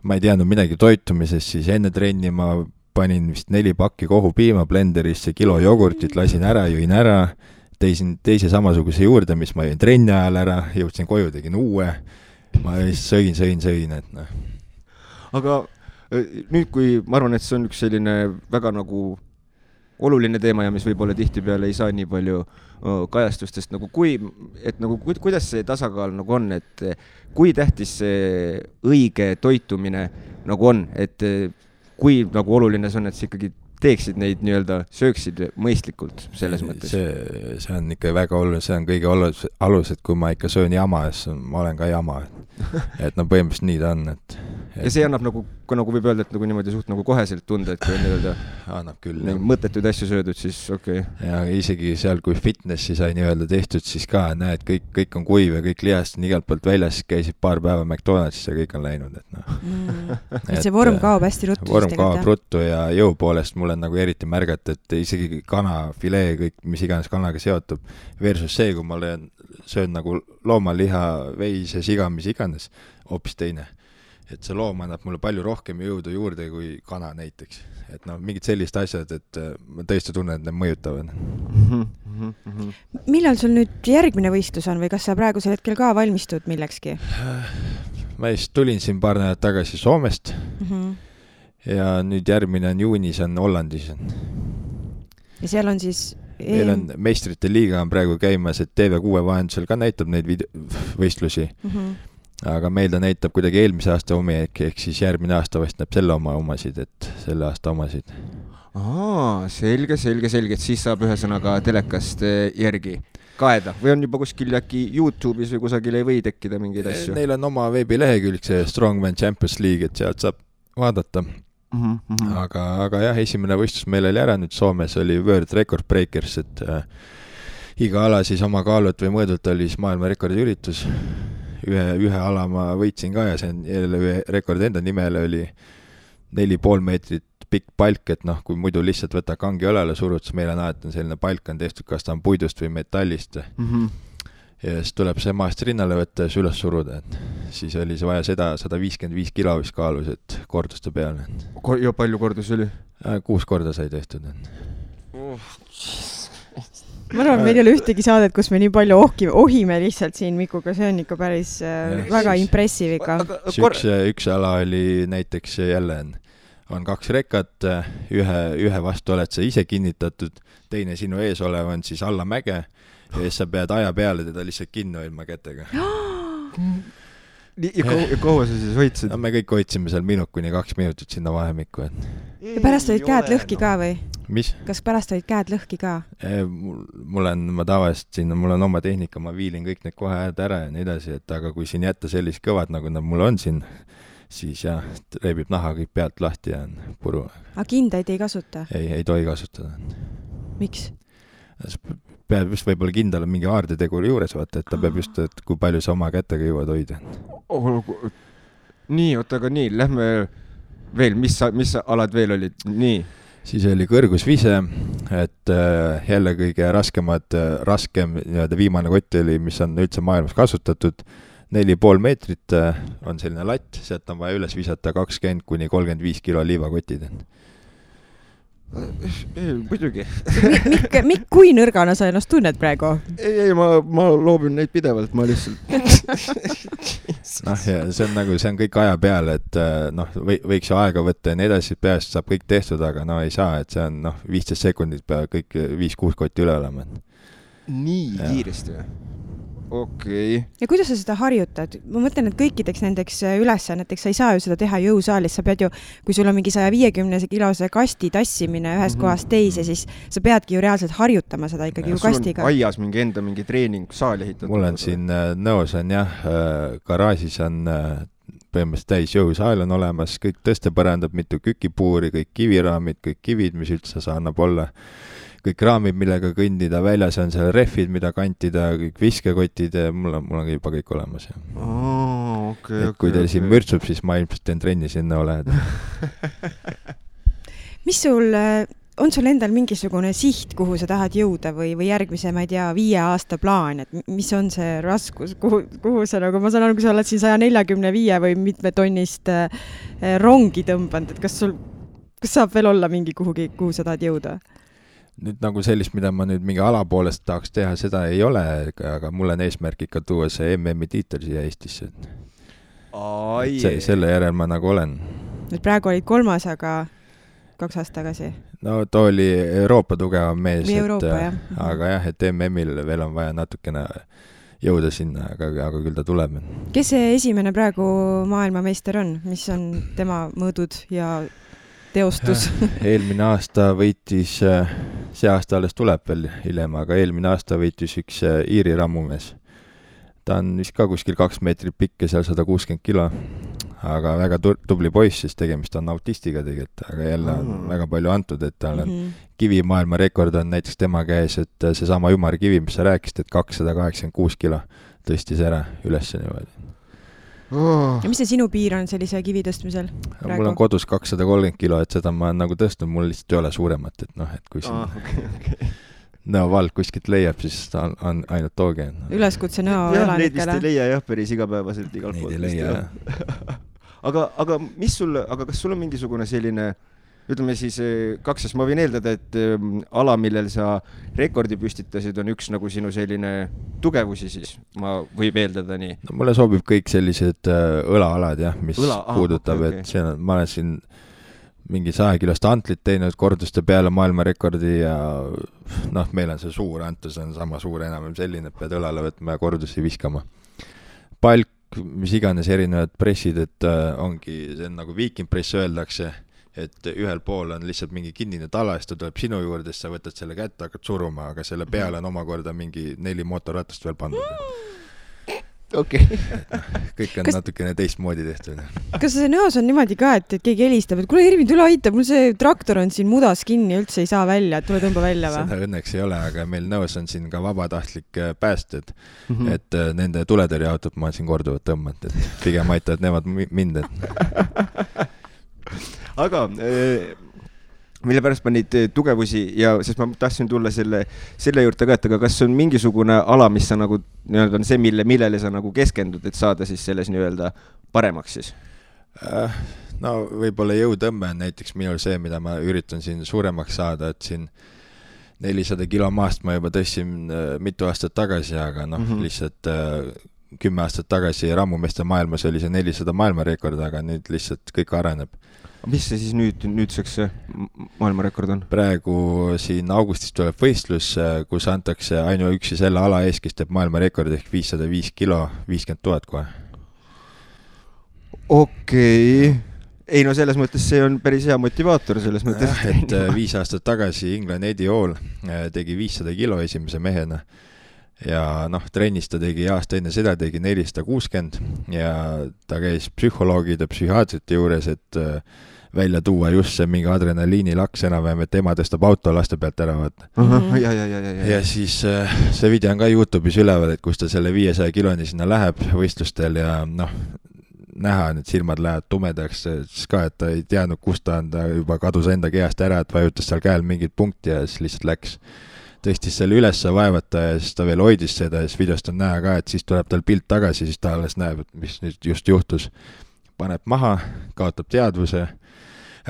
ma ei teadnud midagi toitumisest, siis enne trenni ma panin vist 4 pakki kohupiima blenderisse, kilo jogurtit, lasin ära, jõin ära, teise samasuguse juurde, mis ma jõin trenni ajal ära, jõudsin koju, tegin uue, ma sõin, et Aga nüüd, kui ma arvan, et see on üks selline väga nagu oluline teema ja mis võib-olla tihtipeale ei saa nii palju kajastustest, nagu kuidas see tasakaal nagu on, et kui tähtis see õige toitumine nagu on, et kui nagu oluline see on, et see ikkagi teeksid neid nii-öelda, sööksid mõistlikult selles mõttes? See on ikka väga oluline, see on kõige alus, et kui ma ikka söön jama, siis ma olen ka jama. Et põhimõtteliselt nii ta on. Ja see annab nagu võib öelda, et nagu niimoodi suht nagu koheselt tunda, et kui on nii-öelda annab küll, mõttetuid asju söödud, siis okei. Ja isegi seal, kui fitnessi sai nii-öelda tehtud, siis ka näed, kõik on kuiv ja kõik lihast on igalt poolt väljas, käisid paar päeva McDonaldsis ja kõik on läinud. Et see vorm kaob hästi ruttu. Vorm kaob ruttu ja jõu poolest mul on nagu eriti märgata, et isegi kana, filee, kõik, mis iganes kanaga seotub, versus see, kui ma söön nagu loomaliha, veis ja siga, mis iganes, hoopis teine. Et see loom annab mulle palju rohkem jõudu juurde kui kana näiteks. Et mingid sellised asjad, et ma tõesti tunnen, et need mõjutavad. Millal sul nüüd järgmine võistlus on või kas sa praegusel hetkel ka valmistud millekski? Ma just tulin siin paar nädalat tagasi Soomest ja nüüd järgmine on juunis, on Hollandis. Ja seal on siis meil on meistrite liiga on praegu käimas, et TV6 vahendusel ka näitab neid võistlusi. Aga meil ta näitab kuidagi eelmise aasta omi, ehk siis järgmine aasta vast näeb selle omasid, et selle aasta omasid. Selge, et siis saab ühesõnaga telekast järgi kaeda või on juba kuskil äkki YouTube'is või kusagil ei või tekkida mingeid asju? Neil on oma veebilehekülg, see Strongman Champions League, et sealt saab vaadata. Aga jah, esimene võistlus meil oli ära, nüüd Soomes oli World Record Breakers, et iga ala siis oma kaalult või mõõdult oli siis maailma rekordi üritus. Ühe ala ma võitsin ka ja see on jälle ühe rekord enda nimele oli 4,5 meetrit pikk palk, et noh, kui muidu lihtsalt võtta kangi õlele surud, siis meil on alati selline palk on tehtud, kas ta on puidust või metallist. Ja siis tuleb see maast rinnale võtta ja siis üles suruda, et siis oli see vaja seda 155 kilo vist kaalus, et korduste peale. Ja palju kordus oli? 6 korda sai tehtud. Ma arvan, meil ei ole ühtegi saadet, kus me nii palju ohime lihtsalt siin Mikuga, see on ikka päris väga impressive ikka. Üks ala oli näiteks jälle on 2 rekat, ühe vastu oled sa ise kinnitatud, teine sinu ees olev on siis alla mäge ja siis sa pead aja peale teda lihtsalt kinni hoidma kätega. Ja kaua sa siis hoidsid? No, me kõik hoidsime seal kuni 2 minutit sinna vahemikku. Ja pärast olid käed lõhki ka või? Mis? Kas pärast olid käed lõhki ka? Ma tavaliselt siin, mul on oma tehnika, ma viilin kõik need kohe ära ja nii edasi, et aga kui siin jätta sellist kõvad, nagu nad mul on siin, siis jah, reebib naha kõik pealt lahti ja on puru. Aga kindaid ei kasuta? Ei tohi kasutada. Miks? Peab just võib-olla kindal mingi aardeteguri juures vaata, et ta peab just, et kui palju sa oma kätega jõuad hoida. Nii, aga nii, lähme veel, mis alad veel olid? Nii. Siis oli kõrgusvise, et jälle kõige raskem viimane kott oli, mis on üldse maailmas kasutatud. 4,5 meetrit on selline latt, sealt on vaja üles visata 20-35 kilo liivakotid. Muidugi. Mikk, kui nõrgana sa ennast tunned praegu? Ei, ma loobin neid pidevalt, ma lihtsalt... ja see on kõik aja peale, et võiks ju aega võtta ja nii edasi, peast saab kõik tehtud, aga ei saa, et see on 15 sekundit peab kõik 5-6 kotti üle olema. Nii kiiresti või? Okei. Ja kuidas sa seda harjutad? Ma mõtlen, et kõikideks nendeks ülesanneteks sa ei saa ju seda teha jõusaalis. Sa pead ju, kui sul on mingi 150 kilose kasti tassimine ühest kohast teise, siis sa peadki ju reaalselt harjutama seda ikkagi ju kastiga. Sul on aias mingi treening saali ehitatud? Mul on siin nõos on garaažis on põhimõtteliselt täis jõusaal on olemas, kõik tõstepõrandab, mitu kükipuuri, kõik kiviraamid, kõik kivid, mis üldse sa annab olla. Kõik raamid, millega kõndida, väljas on seal rehvid, mida kantida, kõik viskekotid, mul on juba kõik olemas. Kui teil siin mürtsub, siis ma ilmselt teen trenni sinna oled. Mis on sul endal mingisugune siht, kuhu sa tahad jõuda või järgmise, ma ei tea, 5 aasta plaan, et mis on see raskus, kuhu sa nagu, ma saan aru, kui sa oled siin 145 või mitme tonnist rongi tõmbanud, et kas saab veel olla mingi kuhu sa tahad jõuda? Nüüd nagu sellist, mida ma nüüd mingi alapoolest tahaks teha, seda ei ole, aga mul on eesmärk ikka tuua see MM-i tiitel siia Eestisse. Selle järel ma nagu olen. Nüüd praegu olid 3, aga 2 aastat tagasi? No too oli Euroopa tugevam mees, aga jah, et MM-il veel on vaja natukene jõuda sinna, aga küll ta tuleb. Kes see esimene praegu maailmameister on? Mis on tema mõõdud ja teostus? Eelmine aasta võitis, see aasta alles tuleb veel hiljem, aga eelmine aasta võitis üks Iiri rammumees. Ta on vist ka kuskil 2 meetrit pikk ja seal 160 kilo, aga väga tubli poiss, siis tegemist on autistiga tegelikult, aga jälle on väga palju antud, et tal on kivimaailma rekord on näiteks tema käes, et seesama ümarkivi, mis sa rääkisid, et 286 kilo tõstis ära üles niimoodi. Ja mis see sinu piir on sellise kivi tõstmisel? Mul on kodus 230 kilo, et seda ma olen nagu tõstnud, mul lihtsalt ei ole suuremat, et et kui siin Nõo-vald kuskilt leiab, siis on ainult tooge. Üleskutse Nõo elanikele. Neid vist ei leia päris igapäevaselt igalt poolt. Neid ei leia, aga kas sul on mingisugune selline, ütleme siis 2, ma võin eeldada, et ala, millel sa rekordi püstitasid, on üks nagu sinu selline tugevusi siis, ma võib eeldada nii. No, mulle sobib kõik sellised õlaalad, mis puudutab, okay. Et ma olen siin mingi 100 kilost antlit teinud korduste peale maailmarekordi ja meil on see suur antus, on sama suur enam selline, et pead õlale võtma ja kordusi viskama. Palk, mis iganes erinevad pressid, et ongi, see on nagu viikinpress öeldakse, et ühel pool on lihtsalt mingi kinnine tala, siis ta tuleb sinu juurde, sa võtad selle kätte, hakkad suruma, aga selle peale on omakorda mingi 4 mootorratast veel pandud. Okay. Kõik on natukene teistmoodi tehtud. Kas see Nõos on niimoodi ka, et keegi helistab, et kuule Ervin, tule aita, mul see traktor on siin mudas kinni, üldse ei saa välja, et tule tõmba välja või? Seda õnneks ei ole, aga meil Nõos on siin ka vabatahtlik päästed, et nende tuletõrjeautot ma olen siin korduvalt tõmmanud, et pigem aitavad nemad mind. aga mille pärast ma neid tugevusi ja sest ma tahtsin tulla selle juurde ka, et aga kas on mingisugune ala, mis sa nagu nii-öelda on see, millele sa nagu keskendud, et saada siis selles nii-öelda paremaks siis? No võib-olla jõutõmme on näiteks minul see, mida ma üritan siin suuremaks saada, et siin 400 kilo maast ma juba tõstsin mitu aastat tagasi, aga lihtsalt 10 aastat tagasi rammumeeste maailmas oli see 400 maailmarekord, aga nüüd lihtsalt kõik areneb. Mis see siis nüüdseks maailmarekord on? Praegu siin augustis tuleb võistlus, kus antakse ainuüksi selle ala ees, kes teeb maailmarekord ehk 505 kilo, 50 000 kohe. Okei. Ei no selles mõttes see on päris hea motivaator selles mõttes. Et 5 aastat tagasi England Eddie Hall tegi 500 kilo esimese mehena. Ja trennis ta tegi aasta enne seda, tegi 460 ja ta käis psühholoogide, psühhiaatrite juures, et välja tuua just see mingi adrenaliinilaks enam-vähem, et ema tõstab auto laste pealt ära vaata. Ja siis see video on ka YouTube'is üleval, et kus ta selle 500 kiloni sinna läheb võistlustel ja näha, need silmad lähevad tumedaks, siis ka, et ta ei teadnud, kust ta on, ta juba kadus enda kehast ära, et vajutas seal käel mingit punkti ja siis lihtsalt läks. Tõstis selle ülesse vaevata ja siis ta veel hoidis seda ja siis videost on näha ka, et siis tuleb tal pilt tagasi, siis ta alles näeb, et mis nüüd just juhtus. Paneb maha, kaotab teadvuse,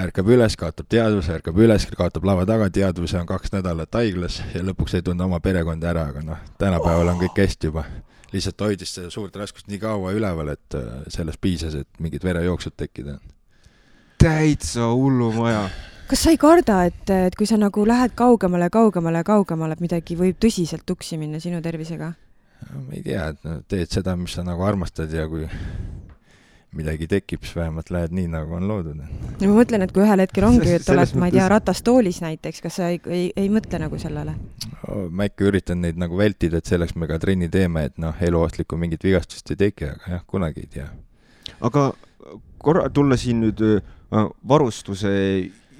ärkab üles, kaotab teadvuse, ärkab üles, kaotab lava taga teadvuse, on 2 nädalat haiglas ja lõpuks ei tunne oma perekonda ära, aga tänapäeval on kõik hästi juba. Lihtsalt hoidis seda suurt raskust nii kaua üleval, et sellest piisas, et mingid verejooksud tekkida. Täitsa hullu maja. Kas sa ei karda, et kui sa nagu lähed kaugemale, midagi võib tõsiselt tuksi minna sinu tervisega? Ma ei tea, et teed seda, mis sa nagu armastad ja kui midagi tekib, siis vähemalt lähed nii, nagu on loodud. Ja ma mõtlen, et kui ühel hetkel ongi, et oled, ma ei tea, ratastoolis näiteks, kas sa ei mõtle nagu sellele? Ma ikka üritan neid nagu vältida, et selleks me ka trenni teeme, et eluohtlikku mingit vigastust ei teki, aga jah, kunagi ei tea. Aga korra tulla siin nüüd varustuse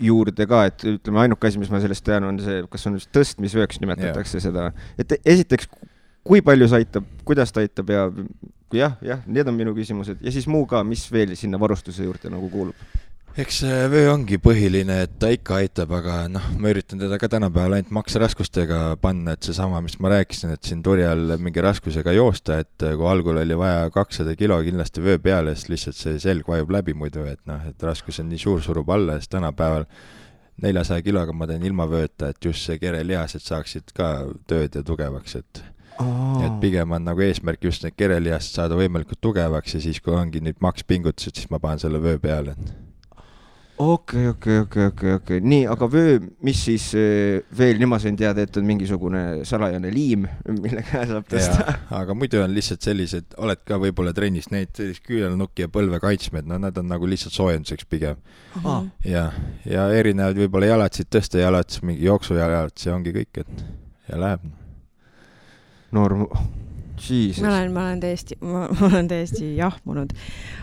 juurde ka, et ütleme, ainuke asi, mis ma sellest tean, on see, kas on tõstmisvööks nimetatakse seda. Et esiteks, kui palju see aitab, kuidas ta aitab ja jah, need on minu küsimused. Ja siis muu ka, mis veel sinna varustuse juurde nagu kuulub? Eks vöö ongi põhiline, et ta ikka aitab, aga ma üritan teda ka tänapäeval ainult maksraskustega panna, et see sama, mis ma rääkisin, et siin turjal mingi raskusega joosta, et kui algul oli vaja 200 kilo kindlasti vöö peale, siis lihtsalt see selg vajub läbi muidu, et raskus on nii suur, surub alla, siis tänapäeval 400 kiloga ma teen ilma vööta, et just see kerelihased saaksid ka tööd ja tugevaks, et pigem on nagu eesmärk just need kerelihased saada võimalikult tugevaks ja siis, kui ongi nüüd makspingutused, siis ma panen selle vöö peale. Okei. Nii, aga vöö, mis siis veel, nii ma sain teada, et on mingisugune salajane liim, mille käe saab tõsta. Aga muidu on lihtsalt sellised, oled ka võib-olla trennis, need küünelnukki ja põlve kaitsmed, nad on nagu lihtsalt soojenduseks pigem. Ja erinevad võib-olla jalatsid tõsta, jalatsid, mingi jooksujalad, see ongi kõik, et ja läheb. Norm... Jesus. Ma olen täiesti jahmunud.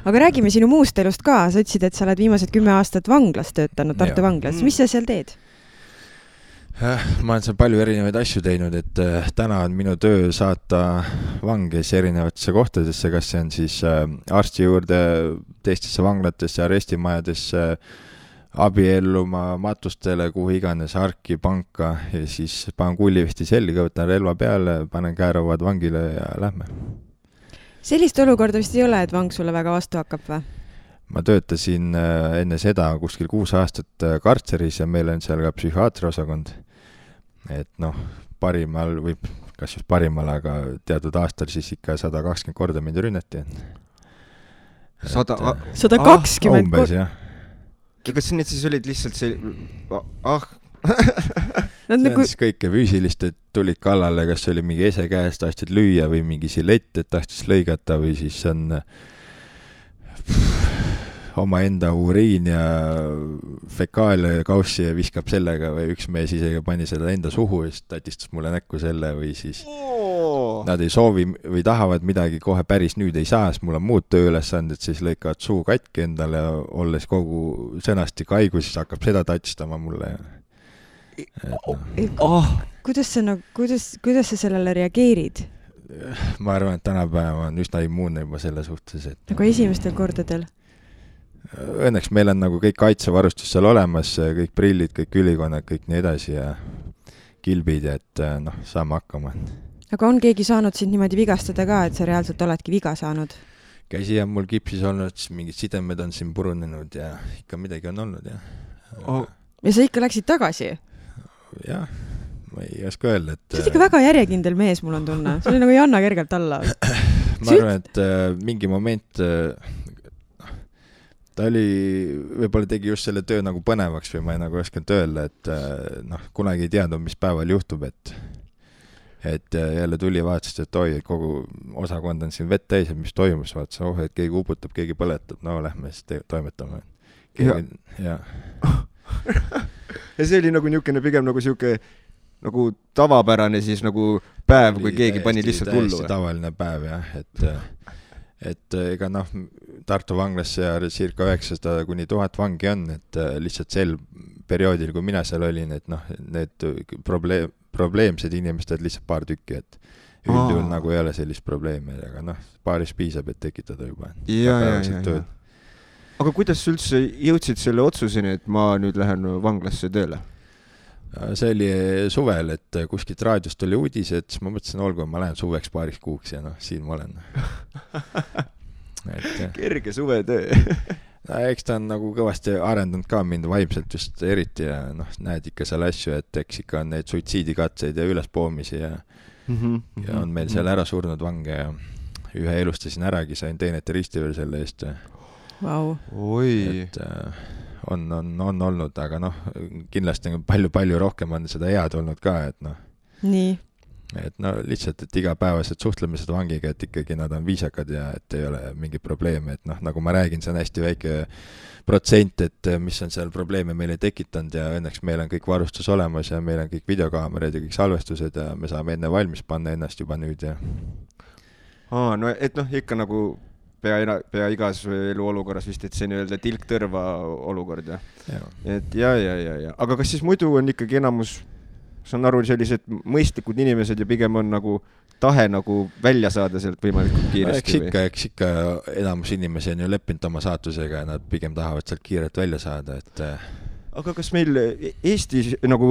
Aga räägime sinu muust elust ka. Sa ütlesid, et sa oled viimased 10 aastat vanglas töötanud, Tartu vanglas. Mis sa seal teed? Ma olen seal palju erinevaid asju teinud, et täna on minu töö saata vanges erinevatesse kohtadesse, kas see on siis arsti juurde, teistesse vanglatesse, arestimajadesse, abielluma, matustele, kuhu iganes, arki, panka ja siis panen kullivesti selga, võtan relva peale, panen käerauad vangile ja lähme. Sellist olukorda vist ei ole, et vang sulle väga vastu hakkab või? Ma töötasin enne seda kuskil 6 aastat kartseris ja meil on seal ka psühhiaatriosakond. Et parimal või kas just parimal, aga teatud aastal siis ikka 120 korda mind rünnati. 120 umbes, jah. Kas need siis olid lihtsalt see... See on siis kõike füüsilist, et tulid kallale, kas oli mingi ese käest, tahtsid lüüa või mingi silett, et tahtsid lõigata või siis on oma enda uriin ja fekaalia kaussi ja viskab sellega või üks mees isegi pani seda enda suhu ja siis tatistas mulle näkku selle või siis nad ei soovi või tahavad midagi kohe päris nüüd ei saa, sest mul on muud tööülesanded, siis lõikavad suu katki endale ja olles kogu sõnastik haigus, siis hakkab seda tatistama mulle. Kuidas sa sellele reageerid? Ma arvan, et tänapäeva on üsna immuunne juba selle suhtes. Nagu esimestel kordadel? õnneks meil on nagu kõik kaitsevarustus seal olemas, kõik prillid, kõik ülikonnad, kõik nii edasi ja kilbid, et saame hakkama. Aga on keegi saanud sind niimoodi vigastada ka, et sa reaalselt oledki viga saanud? Käsi on mul kipsis olnud, mingid sidemed on siin purunenud ja ikka midagi on olnud, Ja sa ikka läksid tagasi? Jah, ma ei oska öelda, et... See on ikka väga järjekindel mees, mul on tunne. See oli nagu ei anna kergelt alla. Ma arvan, et mingi moment ta oli, võib-olla tegi just selle töö nagu põnevaks või ma ei nagu oskanud öelda, et kunagi ei teadnud, mis päeval juhtub, et jälle tuli vaatasid, et oi, kogu osakond on siin vett täis, et mis toimus, vaatasid, et keegi uputab, keegi põletab, no lähme siis toimetame. Ja see oli nagu niisugune pigem nagu siuke nagu tavapärane siis nagu päev, kui keegi pani lihtsalt hullu. Täiesti tavaline päev, jah, et ega Tartu vanglasse ja circa 900 kuni 1000 vangi on, et lihtsalt sel perioodil, kui mina seal olin, et need probleemsed inimesed lihtsalt paar tükki, et üldjuhul nagu ei ole sellist probleemi, aga paaris piisab, et tekitada juba. Ja. Aga kuidas üldse jõudsid selle otsuseni, et ma nüüd lähen vanglasse tööle? See oli suvel, et kuskilt raadiost tuli uudis, et ma mõtlesin, olgu, ma lähen suveks paariks kuuks ja siin ma olen. Kerge suvetöö. Eks ta on nagu kõvasti arendanud ka mind vaimselt just eriti ja näed ikka seal asju, et eks ikka on neid suitsiidikatseid ja ülespoomisi ja on meil seal ära surnud vange ja ühe elustasin äragi, sain teenete risti veel selle eest. Wow. Oi. Et on olnud, aga kindlasti palju rohkem on seda head olnud ka, et Nii. Et lihtsalt, et igapäevased suhtlemised vangiga, et ikkagi nad on viisakad ja et ei ole mingi probleeme, et nagu ma räägin, see on hästi väike protsent, et mis on seal probleeme meile tekitanud ja õnneks meil on kõik varustus olemas ja meil on kõik videokaamerad ja kõik salvestused ja me saame enne valmis panna ennast juba nüüd ja... No et ikka nagu pea igas eluolukorras vist, et see nii-öelda tilk-tõrva olukord, ja? Et ja. Aga kas siis muidu on ikkagi enamus, saan aru, sellised mõistlikud inimesed ja pigem on nagu tahe nagu välja saada sealt võimalikult kiiresti? Eks ikka enamus inimesi on ju leppinud oma saatusega ja nad pigem tahavad sealt kiirelt välja saada, et... Aga kas meil Eestis nagu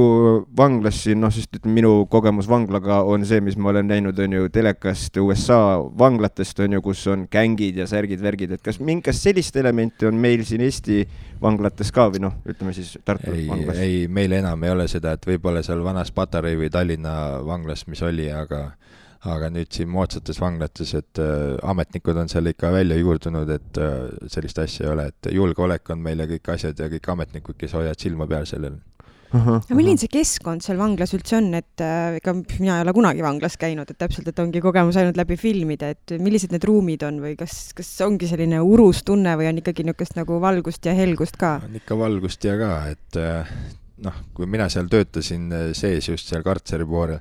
vanglas siin, sest minu kogemus vanglaga on see, mis ma olen näinud, on ju telekast USA vanglatest, on ju, kus on gängid ja särgid, värgid, et kas mingast sellist elementi on meil siin Eesti vanglates ka või ütleme siis Tartu vanglas? Ei, meil enam ei ole seda, et võib-olla seal vanas Patarei või Tallinna vanglas, mis oli, aga nüüd siin moodsates vanglates, et ametnikud on seal ikka välja juurdunud, et sellist asja ei ole, et julgeolek on meil ja kõik asjad ja kõik ametnikud, kes hoiavad silma peal sellel. Ja milline see keskkond seal vanglas üldse on, et ega mina ei ole kunagi vanglas käinud, et täpselt, et ongi kogemus ainult läbi filmide, et millised need ruumid on või kas ongi selline urus tunne või on ikkagi niisugust nagu valgust ja helgust ka? On ikka valgust ja ka, et kui mina seal töötasin sees just seal kartseri poolel,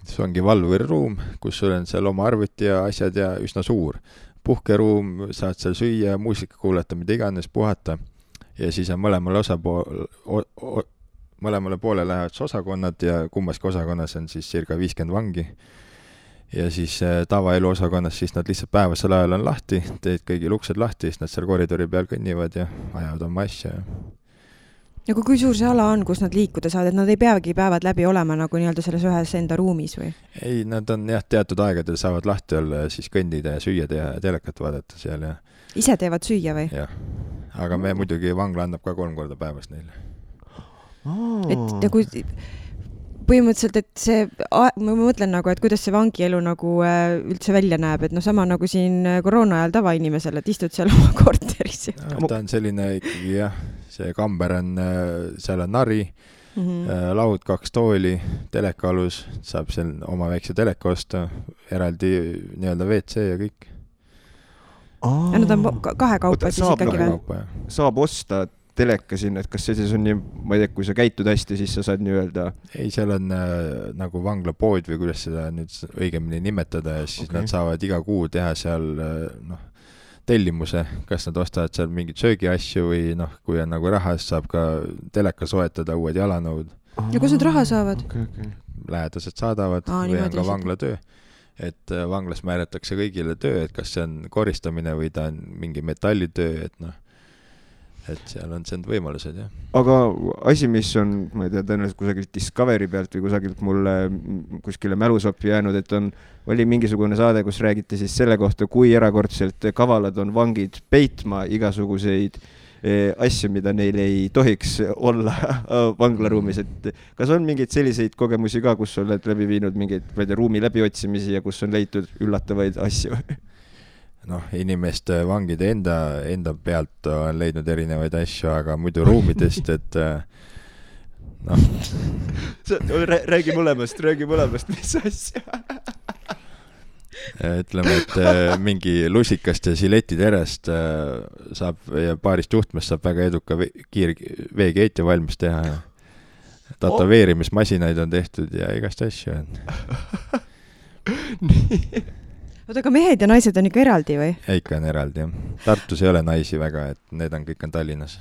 see ongi valvuriruum, kus sul on seal oma arvuti ja asjad ja üsna suur. Puhkeruum, saad seal süüa, muusika kuulata, mida iganes, puhata. Ja siis on mõlemale poole lähevad osakonnad ja kummaski osakonnas on siis circa 50 vangi. Ja siis tavaelu osakonnas siis nad lihtsalt päevasel ajal on lahti, teed kõigil uksed lahti, siis nad seal koridori peal kõnnivad ja ajavad oma asja. Ja kui suur see ala on, kus nad liikuda saavad, et nad ei peagi päevad läbi olema nagu nii-öelda selles ühes enda ruumis või? Ei, nad on teatud aegadel saavad lahti olla ja siis kõndida ja süüa teha ja telekat vaadata seal ja... Ise teevad süüa või? Jah, aga me muidugi vangla annab ka 3 korda päevas neile. Et nagu põhimõtteliselt, et see, ma mõtlen nagu, et kuidas see vangielu nagu üldse välja näeb, et sama nagu siin koroona ajal tavainimesele, et istud seal oma korteris. Ta on selline ikkagi, jah, see kamber on, seal on nari, laud, 2 tooli, telekalus, saab seal oma väikse teleka osta, eraldi nii-öelda WC ja kõik. Ja nad on kahekaupa siis ikkagi või? Saab osta teleka sinna, et kas see siis on nii, ma ei tea, kui sa käitud hästi, siis sa saad nii-öelda... Ei, seal on nagu vanglapood või kuidas seda nüüd õigemini nimetada ja siis nad saavad iga kuu teha seal tellimuse, kas nad ostavad seal mingid söögiasju või kui on nagu raha, siis saab ka teleka soetada, uued jalanõud. Ja kus nad raha saavad? Lähedased saadavad või on ka vanglatöö. Et vanglas määratakse kõigile töö, et kas see on koristamine või ta on mingi metallitöö, et et seal on see võimalused, jah. Aga asi, mis on, ma ei tea, tõenäoliselt kusagilt Discovery pealt või kusagilt mulle kuskile mälusoppi jäänud, et oli mingisugune saade, kus räägiti siis selle kohta, kui erakordselt kavalad on vangid peitma igasuguseid asju, mida neil ei tohiks olla vanglaruumis, et kas on mingeid selliseid kogemusi ka, kus oled läbi viinud mingeid ruumi läbiotsimisi ja kus on leitud üllatavaid asju? Noh, inimeste vangide enda pealt on leidnud erinevaid asju, aga muidu ruumidest, et noh. Räägi mõlemast, mis asja? Ütleme, et mingi lusikast ja siletiterest saab ja paarist juhtmest saab väga eduka veekeeti valmis teha. Tatoveerimismasinaid on tehtud ja igast asju on. Nii. Oota, aga mehed ja naised on ikka eraldi või? Ikka on eraldi, jah. Tartus ei ole naisi väga, et need on kõik Tallinnas.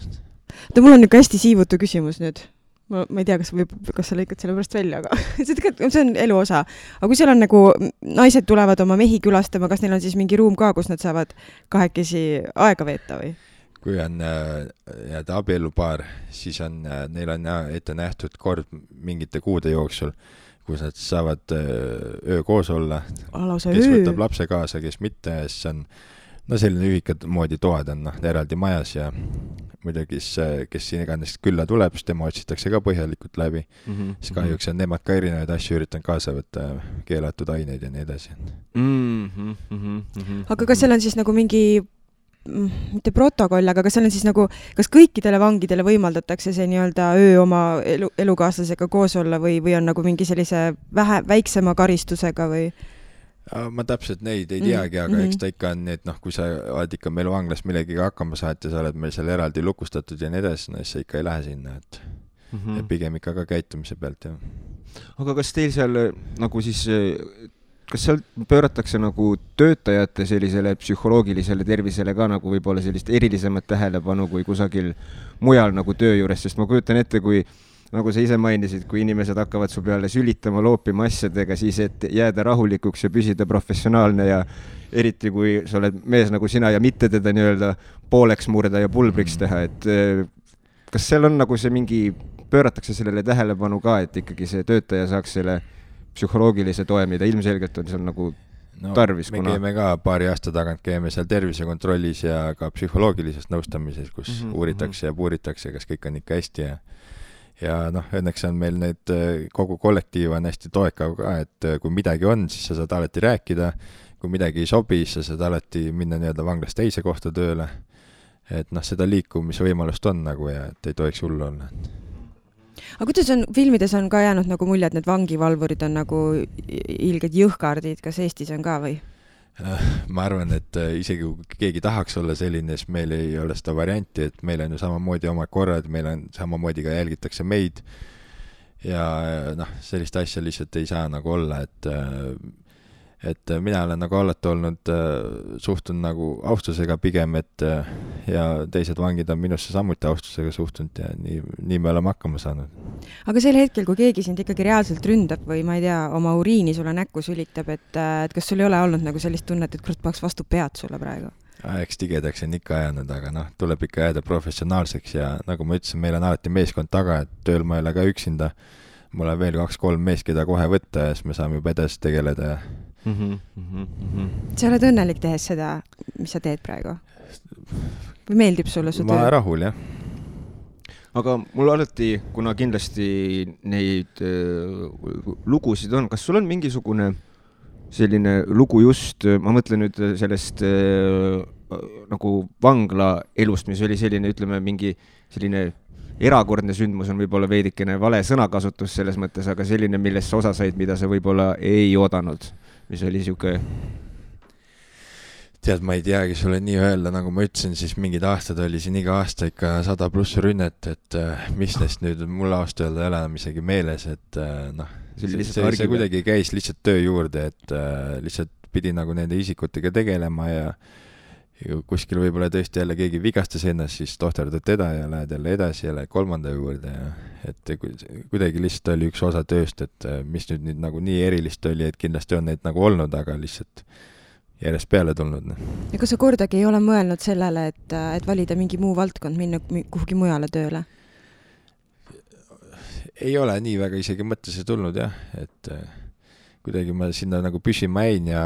Mul on ikka hästi siivutu küsimus nüüd. Ma ei tea, kas sa lõikad selle pärast välja, aga see on elu osa. Aga kui seal on nagu naised tulevad oma mehi külastama, kas neil on siis mingi ruum ka, kus nad saavad kahekesi aega veeta või? Kui on abielupaar, siis neil on ette nähtud kord mingite kuude jooksul, kus nad saavad öö koos olla, kes võtab lapse kaasa, kes mitte, siis on selline ühikad moodi toad on eraldi majas ja muidugi, kes siin iganes külla tuleb, siis tema otsitakse ka põhjalikult läbi. Siis kahjuks on nemad ka erinevaid asju üritanud kaasa võtta, keelatud aineid ja nii edasi. Aga kas seal on siis nagu mingi mitte protokoll, aga kas seal on siis nagu, kas kõikidele vangidele võimaldatakse see nii-öelda öö oma elukaaslasega koos olla või on nagu mingi sellise väiksema karistusega või? Ma täpselt neid ei teagi, aga eks ta ikka on nii, et kui sa oled ikka meil vanglas millegiga hakkama saad ja sa oled meil seal eraldi lukustatud ja nii edasi, siis sa ikka ei lähe sinna, et pigem ikka ka käitumise pealt, jah. Aga kas teil seal nagu siis kas seal pööratakse nagu töötajate sellisele psühholoogilisele tervisele ka nagu võib-olla sellist erilisemat tähelepanu kui kusagil mujal nagu töö juures, sest ma kujutan ette, kui nagu sa ise mainisid, kui inimesed hakkavad su peale sülitama, loopima asjadega, siis et jääda rahulikuks ja püsida professionaalne ja eriti kui sa oled mees nagu sina ja mitte teda nii-öelda pooleks murda ja pulbriks teha, et kas seal on nagu see mingi, pööratakse sellele tähelepanu ka, et ikkagi see töötaja saaks selle psühholoogilise toe, mida ilmselgelt on seal nagu tarvis. Me käime ka paari aasta tagant, käime seal tervisekontrollis ja ka psühholoogilises nõustamises, kus uuritakse ja puuritakse, kas kõik on ikka hästi ja õnneks on meil need kogu kollektiiv on hästi toekav ka, et kui midagi on, siis sa saad alati rääkida, kui midagi ei sobi, siis sa saad alati minna nii-öelda vanglast teise kohta tööle, et seda liikumisvõimalust on nagu ja et ei tohiks hullu olla. Aga kuidas on, filmides on ka jäänud nagu mulje, et need vangivalvurid on nagu ilged jõhkardid, kas Eestis on ka või? Ma arvan, et isegi kui keegi tahaks olla selline, siis meil ei ole seda varianti, et meil on ju samamoodi oma korrad, meil on samamoodi ka jälgitakse meid ja sellist asja lihtsalt ei saa nagu olla, et mina olen nagu alati olnud, suhtun nagu austusega pigem, et ja teised vangid on minusse samuti austusega suhtunud ja nii me oleme hakkama saanud. Aga sel hetkel, kui keegi sind ikkagi reaalselt ründab või ma ei tea, oma uriini sulle näkku sülitab, et kas sul ei ole olnud nagu sellist tunnet, et kurat paks vastu pead sulle praegu? Eks tigedaks on ikka ajanud, aga tuleb ikka jääda professionaalseks ja nagu ma ütlesin, meil on alati meeskond taga, et tööl ma ei ole ka üksinda. Mul on veel 2-3 mees, keda kohe võtta ja siis me saame juba edasi tegeleda ja Sa oled õnnelik tehes seda, mis sa teed praegu? Või meeldib sulle su töö? Ma rahul, jah. Aga mul alati, kuna kindlasti neid lugusid on, kas sul on mingisugune selline lugu just, ma mõtlen nüüd sellest nagu vangla elust, mis oli selline, ütleme, mingi selline erakordne sündmus on võib-olla veidikene vale sõnakasutus selles mõttes, aga selline, millest sa osa said, mida sa võib-olla ei oodanud, mis oli siuke... Tead, ma ei teagi sulle nii öelda, nagu ma ütlesin, siis mingid aastad oli siin iga aasta ikka 100+ rünnet, et mis neist nüüd mul aasta öelda ei ole enam isegi meeles, et see kuidagi käis lihtsalt töö juurde, et lihtsalt pidi nagu nende isikutega tegelema ja kuskil võib-olla tõesti jälle keegi vigastas ennast, siis tohterdad teda ja lähed jälle edasi ja lähed kolmanda juurde ja et kuidagi lihtsalt oli üks osa tööst, et mis nüüd nagu nii erilist oli, et kindlasti on neid nagu olnud, aga lihtsalt järjest peale tulnud. Ja kas sa kordagi ei ole mõelnud sellele, et valida mingi muu valdkond, minna kuhugi mujale tööle? Ei ole nii väga isegi mõttesse tulnud jah, et kuidagi ma sinna nagu püsima jäin ja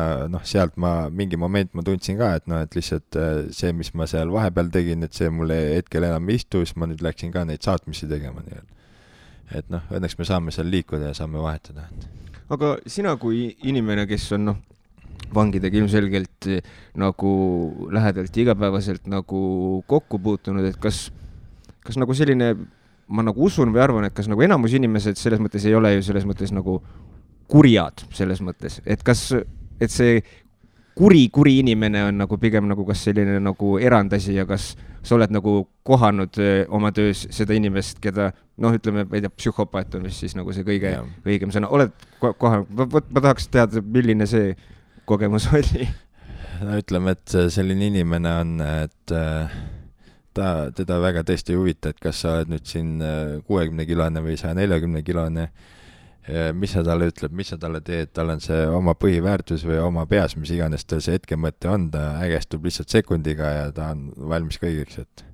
sealt mingi moment ma tundsin ka, et lihtsalt see, mis ma seal vahepeal tegin, et see mulle hetkel enam ei istu, siis ma nüüd läksin ka neid saatmisi tegema. Et õnneks me saame seal liikuda ja saame vahetada. Aga sina kui inimene, kes on vangidega ilmselgelt nagu lähedalt igapäevaselt nagu kokku puutunud, et kas nagu selline, ma nagu usun või arvan, et kas nagu enamus inimesed selles mõttes ei ole ju selles mõttes nagu kurjad selles mõttes, et see kuri inimene on nagu pigem nagu kas selline nagu erandasi ja kas sa oled nagu kohanud oma töös seda inimest, keda ütleme, ma ei tea, psühhopaat on vist siis nagu see kõige õigem sõna. Oled kohanud? Ma tahaks teada, milline see kogemus oli. Ütleme, et selline inimene on, et teda väga tõesti ei huvita, et kas sa oled nüüd siin 60-kilone või 140-kilone, mis sa talle ütleb, mis sa talle teed, tal on see oma põhiväärtus või oma peas, mis iganes tal see hetkemõte on, ta ägestub lihtsalt sekundiga ja ta on valmis kõigeks, et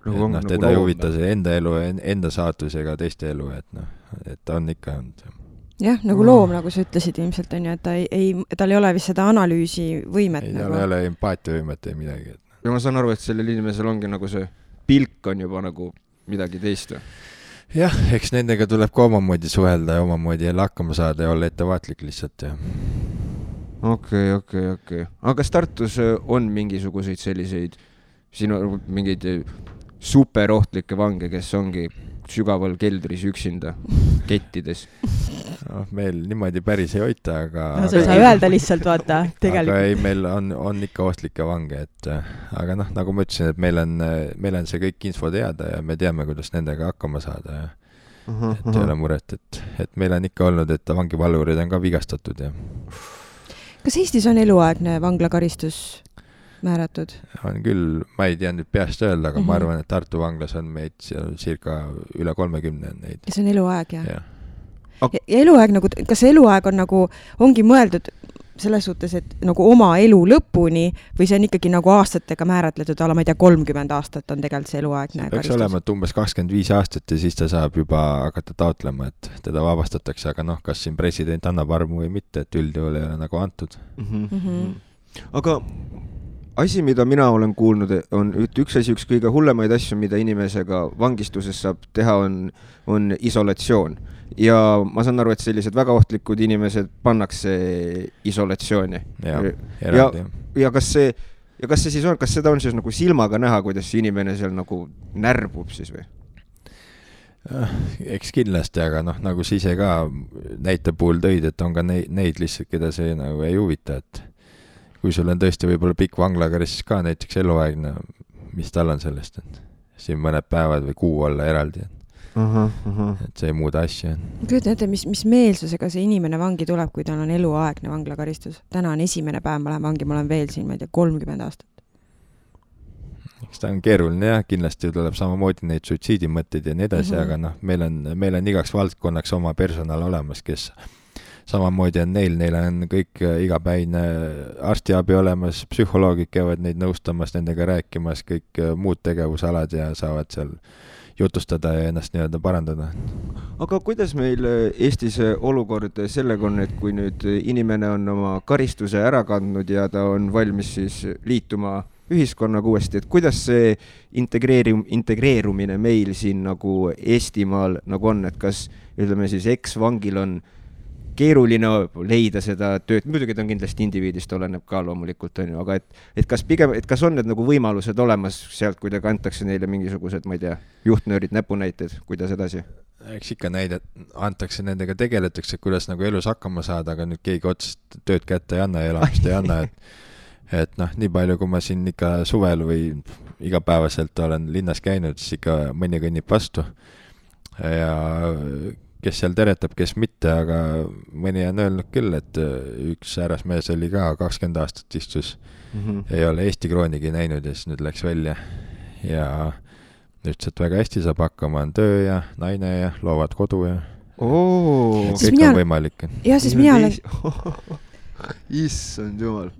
teda ei huvita see enda elu, enda saatus ega teiste elu, et ta on ikka olnud. Jah, nagu loom, nagu sa ütlesid ilmselt on ju, et tal ei ole vist seda analüüsi võimet. Tal ei ole empaatia võimet ei midagi. Ja ma saan aru, et sellel inimesel ongi nagu see pilk on juba nagu midagi teist. Jah, eks nendega tuleb ka omamoodi suhelda ja omamoodi jälle hakkama saada ja olla ettevaatlik lihtsalt. Okei. Aga kas Tartus on mingisuguseid selliseid sinu mingeid superohtlikke vange, kes ongi sügaval keldris üksinda kettides? Meil niimoodi päris ei hoita, aga... sa ei saa öelda lihtsalt, vaata, tegelikult. Aga ei, meil on ikka ohtlikke vange, aga nagu ma ütlesin, et meil on see kõik info teada ja me teame, kuidas nendega hakkama saada ja et ei ole muret, et meil on ikka olnud, et vangivalvurid on ka vigastatud. Ja. Kas Eestis on eluaegne vanglakaristus määratud? On küll, ma ei tea nüüd peast öelda, aga ma arvan, et Tartu vanglas on meid circa üle 30 on neid. Ja see on eluaeg, jah? Ja eluaeg nagu, kas eluaeg on nagu, ongi mõeldud selles suhtes, et nagu oma elu lõpuni või see on ikkagi nagu aastatega määratletud, ma ei tea, 30 aastat on tegelikult see eluaegne karistus? Peaks olema, et umbes 25 aastat ja siis ta saab juba hakata taotlema, et teda vabastatakse, aga kas siin president annab armu või mitte, et üldjuhul ei ole nagu antud. Aga asi, mida mina olen kuulnud, on üks kõige hullemaid asju, mida inimesega vangistuses saab teha, on isolatsioon. Ja ma saan aru, et sellised väga ohtlikud inimesed pannakse isolatsiooni. Ja kas see siis on, kas seda on siis nagu silmaga näha, kuidas see inimene seal nagu närbub siis või? Eks kindlasti, aga nagu sa ise ka näite puhul tõid, et on ka neid lihtsalt, keda see nagu ei huvita, et kui sul on tõesti võib-olla pikk vanglakaristus ka, näiteks eluaegne, mis tal on sellest, et siin mõned päevad või kuu olla eraldi, et see ei muuda asja. Kujutan ette, mis meelsusega see inimene vangi tuleb, kui tal on eluaegne vanglakaristus. Täna on esimene päev, ma lähen vangi, ma olen veel siin, ma ei tea, 30 aastat. Eks ta on keeruline ja kindlasti tuleb samamoodi neid suitsiidimõtteid ja nii edasi, aga meil on igaks valdkonnaks oma personal olemas, kes samamoodi on neil on kõik igapäine arstiabi olemas, psühholoogid käivad neid nõustamas, nendega rääkimas, kõik muud tegevusalad ja saavad seal jutustada ja ennast nii-öelda parandada. Aga kuidas meil Eestis olukord sellega on, et kui nüüd inimene on oma karistuse ära kandnud ja ta on valmis siis liituma ühiskonnaga uuesti, et kuidas see integreerumine meil siin nagu Eestimaal nagu on, et kas ütleme siis eks-vangil on keeruline leida seda tööd, muidugi ta on kindlasti indiviidist, oleneb ka loomulikult, on ju, aga et kas on need nagu võimalused olemas sealt, kui ta antakse neile mingisugused, ma ei tea, juhtnöörid, näpunäited, kuidas edasi? Eks ikka näidet antakse, nendega tegeletakse, kuidas nagu elus hakkama saada, aga nüüd keegi otsest tööd kätte ei anna ja elamist ei anna, et nii palju, kui ma siin ikka suvel või igapäevaselt olen linnas käinud, siis ikka mõni kõnnib vastu ja kes seal teretab, kes mitte, aga mõni on öelnud küll, et üks härrasmees oli ka 20 aastat istus, ei ole Eesti kroonigi näinud ja siis nüüd läks välja ja ütles, et väga hästi saab hakkama, on töö ja naine ja loovad kodu ja kõik on võimalik. Ja siis mina olen... Issand jumal.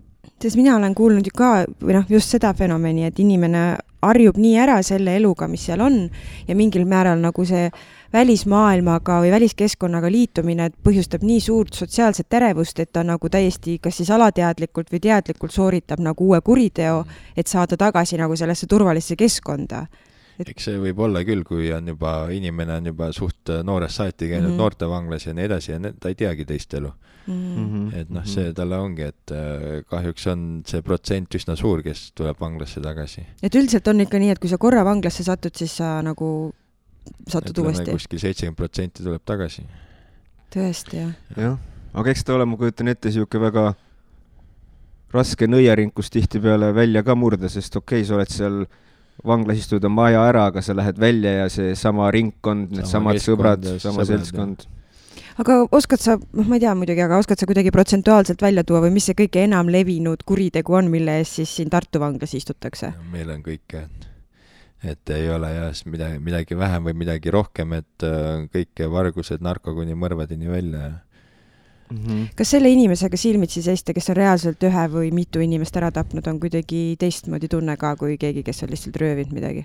Sest mina olen kuulnud ju ka, või noh, just seda fenomeni, et inimene harjub nii ära selle eluga, mis seal on ja mingil määral nagu see välismaailmaga või väliskeskkonnaga liitumine põhjustab nii suurt sotsiaalset terevust, et ta nagu täiesti kas siis alateadlikult või teadlikult sooritab nagu uue kuriteo, et saada tagasi nagu sellesse turvalisse keskkonda. Eks see võib olla küll, kui on juba, inimene on juba suht noorest saati käinud noortevanglas ja nii edasi ja ta ei teagi teist elu. Et noh, see talle ongi, et kahjuks on see protsent üsna suur, kes tuleb vanglasse tagasi. Et üldiselt on ikka nii, et kui sa korra vanglasse satud, siis sa nagu satud uuesti. Kuskil 70% tuleb tagasi. Tõesti, jah. Jah, aga eks ta ole, ma kujutan ette, siuke väga raske nõiaring, kus tihti peale välja ka murda, sest okei, sa oled seal vanglas istuda maja ära, aga sa lähed välja ja see sama ringkond, need samad sõbrad, sama seltskond. Aga oskad sa, ma ei tea muidugi, aga oskad sa kuidagi protsentuaalselt välja tuua või mis see kõige enam levinud kuritegu on, mille eest siis siin Tartu vanglas istutakse? Meil on kõike, et ei ole jah midagi vähem või midagi rohkem, et kõike vargused, narkokuni mõrvadini välja. Kas selle inimesega silmitsi seista, kes on reaalselt ühe või mitu inimest ära tapnud, on kuidagi teistmoodi tunne ka kui keegi, kes on lihtsalt röövinud midagi?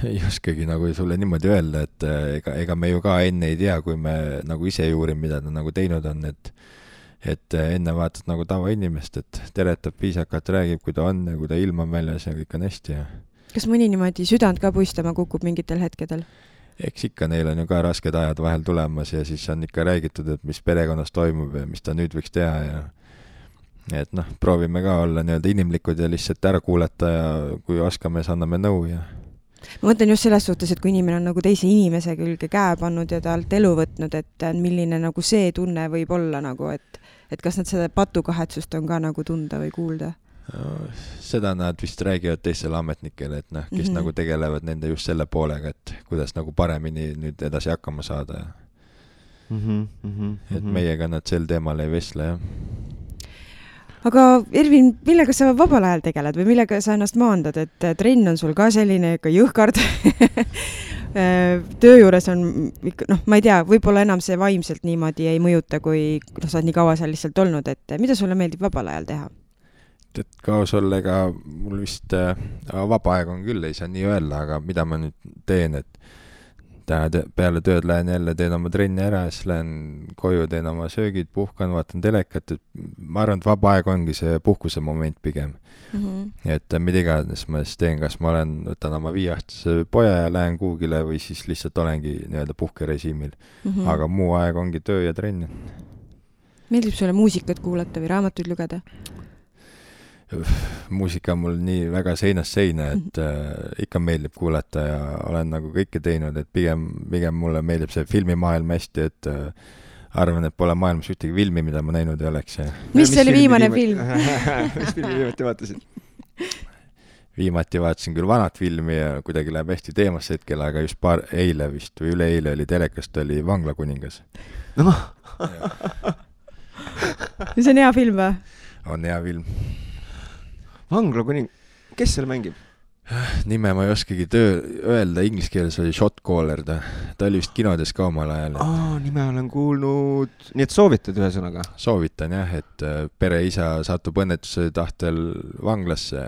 Ei oskagi nagu sulle niimoodi öelda, et ega me ju ka enne ei tea, kui me nagu ise juurim, mida ta nagu teinud on, et enne vaatad nagu tavainimest, et teretab viisakalt, räägib, kui ta on ja kui ta ilm on väljas ja kõik on hästi. Ja. Kas mõni niimoodi südant ka puistama kukub mingitel hetkedel? Eks ikka neil on ju ka rasked ajad vahel tulemas ja siis on ikka räägitud, et mis perekonnas toimub ja mis ta nüüd võiks teha ja et noh, proovime ka olla nii-öelda inimlikud ja lihtsalt ära kuulata ja kui oskame, siis anname nõu ja ma mõtlen just selles suhtes, et kui inimene on nagu teise inimese külge käe pannud ja talt elu võtnud, et milline nagu see tunne võib olla nagu, et kas nad seda patukahetsust on ka nagu tunda või kuulda? Seda nad vist räägivad teistele ametnikele, et noh, kes nagu tegelevad nende just selle poolega, et kuidas nagu paremini nüüd edasi hakkama saada. Et meiega nad sel teemal ei vesle, jah. Aga Ervin, millega sa vabal ajal tegeled või millega sa ennast maandad, et trenn on sul ka selline ikka jõhkard töö juures on, noh, ma ei tea, võib-olla enam see vaimselt niimoodi ei mõjuta, kui sa oled nii kaua seal lihtsalt olnud, et mida sulle meeldib vabal ajal teha? Et kaos olla, ega mul vist vaba aeg on küll, ei saa nii öelda, aga mida ma nüüd teen, et peale tööd lähen jälle, teen oma trenni ära, siis lähen koju, teen oma söögid, puhkan, vaatan telekat, et ma arvan, et vaba aeg ongi see puhkuse moment pigem. Et mida iganes ma siis teen, kas ma võtan oma 5-aastase poja ja lähen kuugile või siis lihtsalt olengi nii-öelda puhkerežiimil. Aga muu aeg ongi töö ja trenn. Meeldib sulle muusikat kuulata või raamatuid lugeda? Muusika on mul nii väga seinast seina, et ikka meeldib kuulata ja olen nagu kõike teinud, et pigem mulle meeldib see filmimaailm hästi, et arvan, et pole maailmas ühtegi filmi, mida ma näinud ei oleks. Mis oli viimane film? Mis filmi viimati vaatasid? Viimati vaatasin küll vanat filmi ja kuidagi läheb hästi teemasse hetkel, aga just eile vist või üleeile oli telekast, oli Vanglakuningas. No. See on hea film või? On hea film. Vanglakuning, kes seal mängib? Nime ma ei oskagi öelda, inglise keeles oli Shot Caller, ta oli vist kinodes ka omal ajal. Nime olen kuulnud, nii et soovitad ühesõnaga? Soovitan jah, et pereisa satub õnnetuse tahtel vanglasse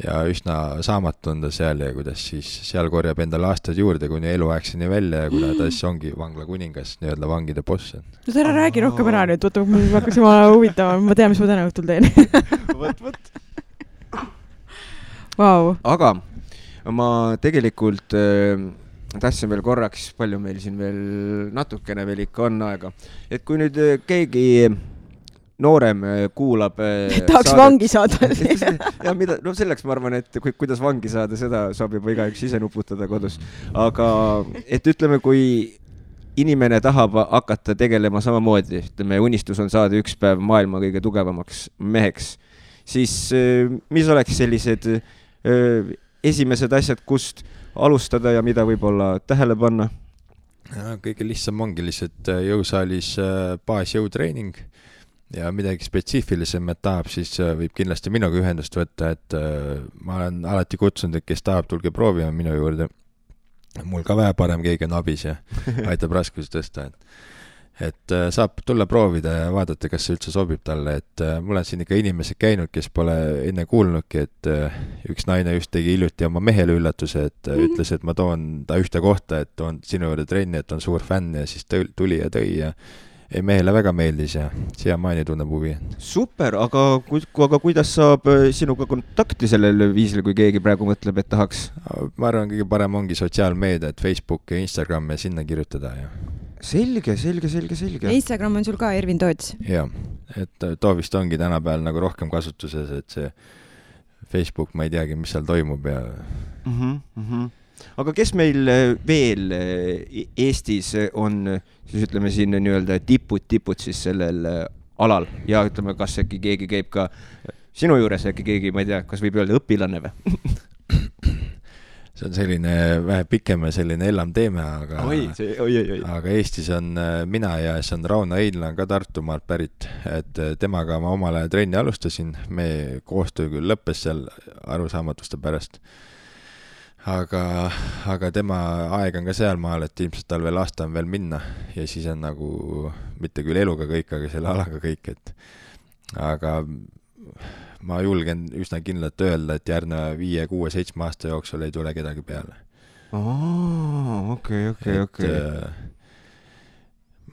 ja üsna saamatu on ta seal ja kuidas siis seal korjab endale aastad juurde kuni eluaegseni välja ja kuna ta siis ongi Vanglakuningas, nii-öelda vangide boss. No ta ära räägi rohkem ära nüüd, võtta, ma hakkas jumala huvitama, ma tean, mis ma täna õhtul teen. Võt. Wow. Aga ma tegelikult tahtsin veel korraks, palju meil siin veel natukene veel ikka on aega, et kui nüüd keegi noorem kuulab tahaks saadet, vangi saada. Ja mida, no selleks ma arvan, et kuidas vangi saada, seda saab juba igaüks ise nuputada kodus. Aga et ütleme, kui inimene tahab hakata tegelema samamoodi, ütleme, unistus on saada üks päev maailma kõige tugevamaks meheks, siis mis oleks sellised esimesed asjad, kust alustada ja mida võib-olla tähele panna? Kõige lihtsam ongi lihtsalt jõusaalis baasjõutreening ja midagi spetsiifilisem, et tahab, siis võib kindlasti minuga ühendust võtta, et ma olen alati kutsunud, et kes tahab, tulge proovima minu juurde. Mul ka vähe parem keegi on abis ja aitab raskusi tõsta. et saab tulla proovida ja vaadata, kas see üldse sobib talle, et mul on siin ikka inimesed käinud, kes pole enne kuulnudki, et üks naine just tegi hiljuti oma mehele üllatuse, et ütles, et ma toon ta ühte kohta, et toon sinu juurde trenni, et on suur fänn ja siis tuli ja tõi ja ei, mehele väga meeldis ja siiamaani tunneb huvi. Super, aga kuidas saab sinuga kontakti sellel viisil, kui keegi praegu mõtleb, et tahaks? Ma arvan, kõige parem ongi sotsiaalmeedia, et Facebook ja Instagram ja sinna kirjutada ja Selge. Instagram on sul ka Ervin Toots? Jah, et too vist ongi tänapäeval nagu rohkem kasutuses, et see Facebook, ma ei teagi, mis seal toimub ja... Aga kes meil veel Eestis on, siis ütleme siin nii-öelda tipud siis sellel alal ja ütleme, kas äkki keegi käib ka sinu juures, äkki keegi, ma ei tea, kas võib öelda õpilane või? See on selline vähe pikem ja selline ellam teeme, aga aga Eestis on mina ja see on Rauno Einla ka Tartumaalt pärit, et temaga ma omale trenni alustasin, me koostöö küll lõppes seal arusaamatuste pärast, aga tema aeg on ka seal maal, et ilmselt tal veel aasta on veel minna ja siis on nagu mitte küll eluga kõik, aga selle alaga kõik, et aga ma julgen üsna kindlalt öelda, et järgneva 5, 6, 7 aasta jooksul ei tule kedagi peale. Okei.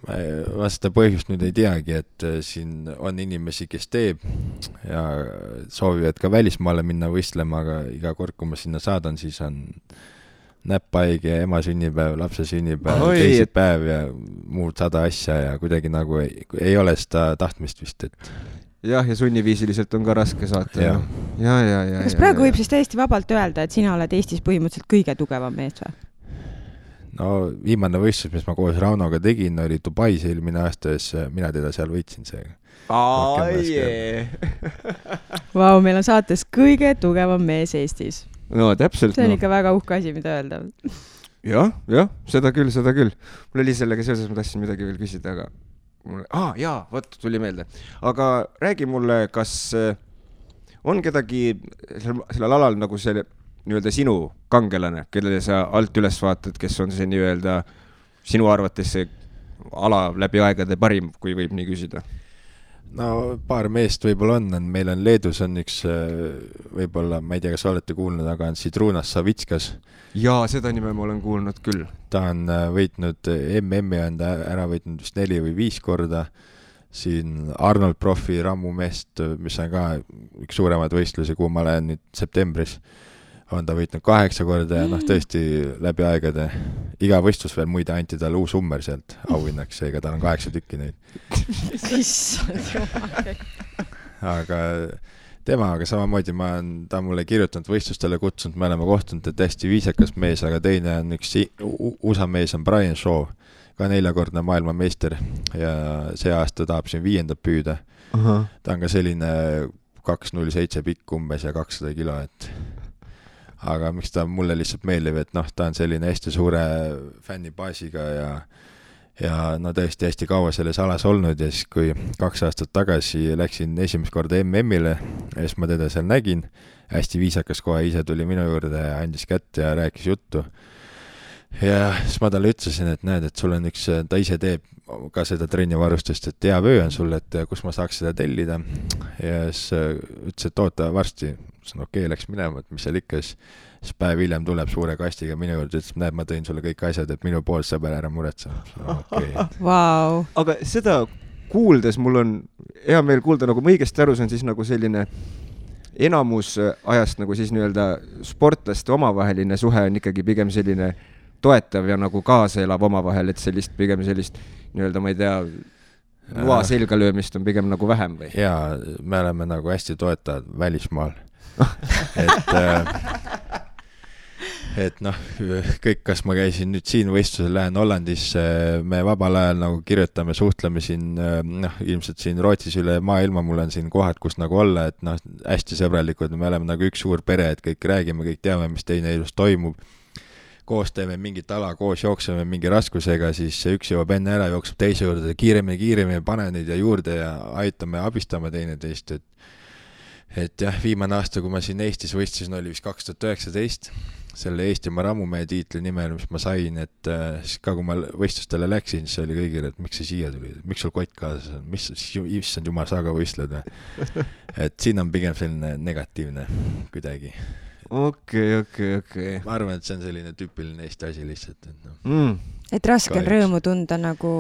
Ma seda põhjust nüüd ei teagi, et siin on inimesi, kes teeb ja soovivad ka välismaale minna võistlema, aga iga kord, kui ma sinna saadan, siis on näppaige, ema sünnipäev, lapse sünnipäev, teisipäev ja muud 100 asja ja kuidagi nagu ei ole seda tahtmist vist, et jah, ja sunniviisiliselt on ka raske saata. Ja. Kas praegu võib siis täiesti vabalt öelda, et sina oled Eestis põhimõtteliselt kõige tugevam mees või? No viimane võistlus, mis ma koos Raunoga tegin, oli Dubais eelmine aasta, mina teda seal võitsin seega. Vau, meil on saates kõige tugevam mees Eestis. No täpselt. See on ikka väga uhke asi, mida öelda. Jah, seda küll. Mul oli sellega seoses, ma tahtsin midagi veel küsida, aga tuli meelde. Aga räägi mulle, kas on kedagi sellel alal nagu see nii-öelda sinu kangelane, kellele sa alt üles vaatad, kes on see nii-öelda sinu arvates see ala läbi aegade parim, kui võib nii küsida? No paar meest võib-olla on, meil on Leedus on üks võib-olla, ma ei tea, kas olete kuulnud, aga on Sidrunas Savitskas. Jaa, seda nime ma olen kuulnud küll. Ta on võitnud MM-i, on ta ära võitnud vist 4 või 5 korda. Siin Arnold Profi rammumeest, mis on ka üks suuremad võistlusi, kuhu ma olen nüüd septembris, on ta võitnud 8 korda ja tõesti läbi aegade. Iga võistlus veel muide anti talle uus ummer sealt auhinnaks, seega tal on 8 tükki neid. Aga temaga samamoodi ta on mulle kirjutanud võistlustele kutsunud, me oleme kohtunud, et hästi viisakas mees, aga teine on üks USA mees on Brian Shaw, ka 4-kordne maailmameister ja see aasta tahab siin 5. püüda. Ta on ka selline 207 pikk umbes ja 200 kilo, et aga miks ta mulle lihtsalt meeldib, et ta on selline hästi suure fännibaasiga ja tõesti hästi kaua selles alas olnud ja siis kui 2 aastat tagasi läksin esimest korda MM-ile ja siis ma teda seal nägin, hästi viisakas kohe ise tuli minu juurde ja andis kätte ja rääkis juttu ja siis ma talle ütlesin, et näed, et sul on ta ise teeb ka seda trennivarustust, et hea vöö on sul, et kus ma saaks seda tellida ja siis ütles, et oota varsti, okei, läks minema, et mis seal ikka, siis päev hiljem tuleb suure kastiga minu juurde, ütles, näed, ma tõin sulle kõik asjad, et minu pool sõber ära muretse. Wow. Aga seda kuuldes mul on hea meel kuulda, nagu ma õigesti aru, see on siis nagu selline enamus ajast nagu siis nii-öelda sportlaste omavaheline suhe on ikkagi pigem selline toetav ja nagu kaasa elab omavahel, et pigem sellist nii-öelda, ma ei tea, loa selga löömist on pigem nagu vähem või? Jaa, me oleme nagu hästi toetavad välismaal. et kõik, kas ma käisin nüüd siin võistlusel, lähen Hollandis, me vabal ajal nagu kirjutame, suhtleme siin, ilmselt siin Rootsis üle maailma, mul on siin kohad, kus nagu olla, et hästi sõbralikud, me oleme nagu üks suur pere, et kõik räägime, kõik teame, mis teine elus toimub. Koos teeme mingit ala, koos jookseme mingi raskusega, siis üks jõuab enne ära, jookseb teise juurde, kiiremini, pane neid ja juurde ja aitame, abistame teineteist, et jah, viimane aasta, kui ma siin Eestis võistlesin, oli vist 2019 selle Eestimaa rammumehe tiitli nimel, mis ma sain, et siis ka kui ma võistlustele läksin, siis oli kõigile, et miks sa siia tuli, miks sul kott kaasas on, mis issand jumal, sa ka võistled või? Et siin on pigem selline negatiivne kuidagi. Okei. Ma arvan, et see on selline tüüpiline Eesti asi lihtsalt. Et raske on rõõmu tunda nagu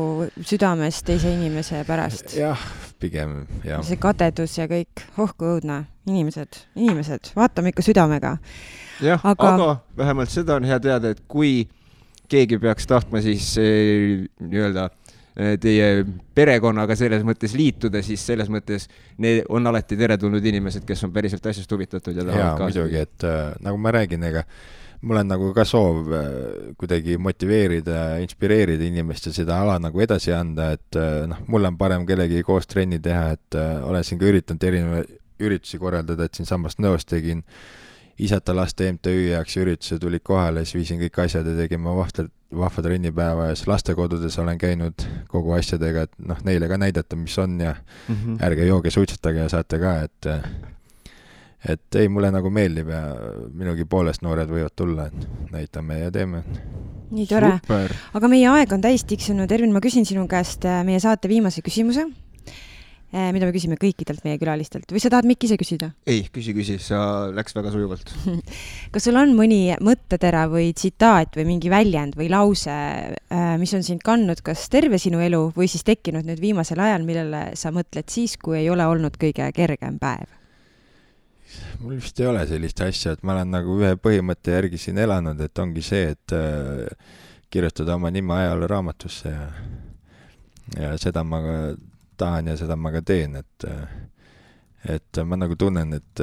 südames teise inimese pärast. Jah, pigem, jah. See kadedus ja kõik, kui õudne. Inimesed, vaatame ikka südamega. Jah, aga vähemalt seda on hea teada, et kui keegi peaks tahtma siis nii-öelda teie perekonnaga selles mõttes liituda, siis selles mõttes need on alati teretulnud inimesed, kes on päriselt asjast huvitatud ja tahavad kaasa. Muidugi, et nagu ma räägin, ega mul on nagu ka soov kuidagi motiveerida, inspireerida inimest ja seda ala nagu edasi anda, et mul on parem kellegi koos trenni teha, et olen siin ka üritanud erinevaid üritusi korraldada, et siin samast Nõos tegin Isata laste MTÜ jaoks ürituse, tulid kohale, siis viisin kõik asjad ja tegin ma vahva trennipäeva ja siis lastekodudes olen käinud kogu asjadega, et neile ka näidata, mis on ja ärge jooge, suitsetage ja saate ka, et ei, mulle nagu meeldib ja minugi poolest noored võivad tulla, et näitame ja teeme. Nii tore. Super. Aga meie aeg on täis tiksunud. Ervin, ma küsin sinu käest meie saate viimase küsimuse, mida me küsime kõikidelt meie külalistelt. Või sa tahad Mikk ise küsida? Ei, küsi, sa läks väga sujuvalt. Kas sul on mõni mõttetera või tsitaat või mingi väljend või lause, mis on sind kandnud kas terve sinu elu või siis tekkinud nüüd viimasel ajal, millele sa mõtled siis, kui ei ole olnud kõige kergem päev? Mul vist ei ole sellist asja, et ma olen nagu ühe põhimõtte järgi siin elanud, et ongi see, et kirjutada oma nime ajaloo raamatusse ja seda ma ka tahan ja seda ma ka teen, et ma nagu tunnen, et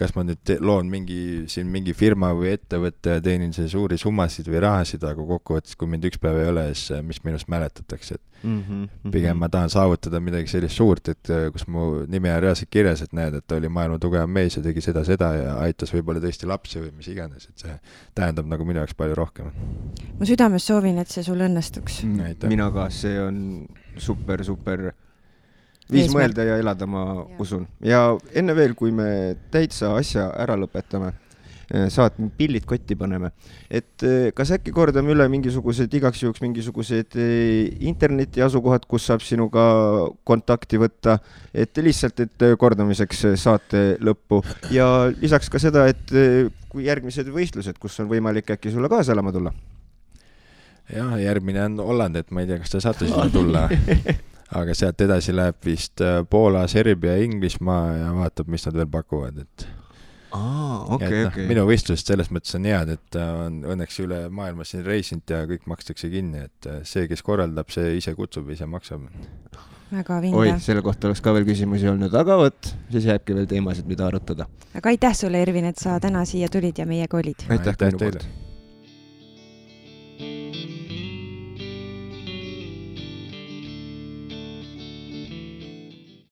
kas ma nüüd loon mingi firma või ettevõtte ja teenin see suuri summasid või rahasid, aga kokkuvõttes, kui mind üks päev ei ole, siis mis minust mäletatakse, et pigem ma tahan saavutada midagi sellist suurt, et kus mu nimi on reaalselt kirjas, et näed, et ta oli maailma tugevam mees ja tegi seda ja aitas võib-olla tõesti lapsi või mis iganes, et see tähendab nagu minu jaoks palju rohkem. Ma südames soovin, et see sul õnnestuks. Mina ka, see on super viis mõelda ja elada, ma usun. Ja enne veel, kui me täitsa asja ära lõpetame, saad pillid kotti paneme, et kas äkki kordame üle igaks juhuks mingisugused interneti asukohad, kus saab sinuga kontakti võtta, et lihtsalt, et kordamiseks saate lõppu ja lisaks ka seda, et kui järgmised võistlused, kus on võimalik äkki sulle kaasa elama tulla? Jah, järgmine on Holland, et ma ei tea, kas te saate sinna tulla. Aga sealt edasi läheb vist Poola, Serbia, Inglismaa ja vaatab, mis nad veel pakuvad. Okay. Minu võistlused selles mõttes on head, et on õnneks üle maailma siin reisinud ja kõik makstakse kinni, et see, kes korraldab, see ise kutsub, ise maksab. Väga vinge. Oi, selle kohta oleks ka veel küsimusi olnud, aga siis jääbki veel teemasid, mida arutada. Aga aitäh sulle, Ervin, et sa täna siia tulid ja meiega olid. Aitäh teile.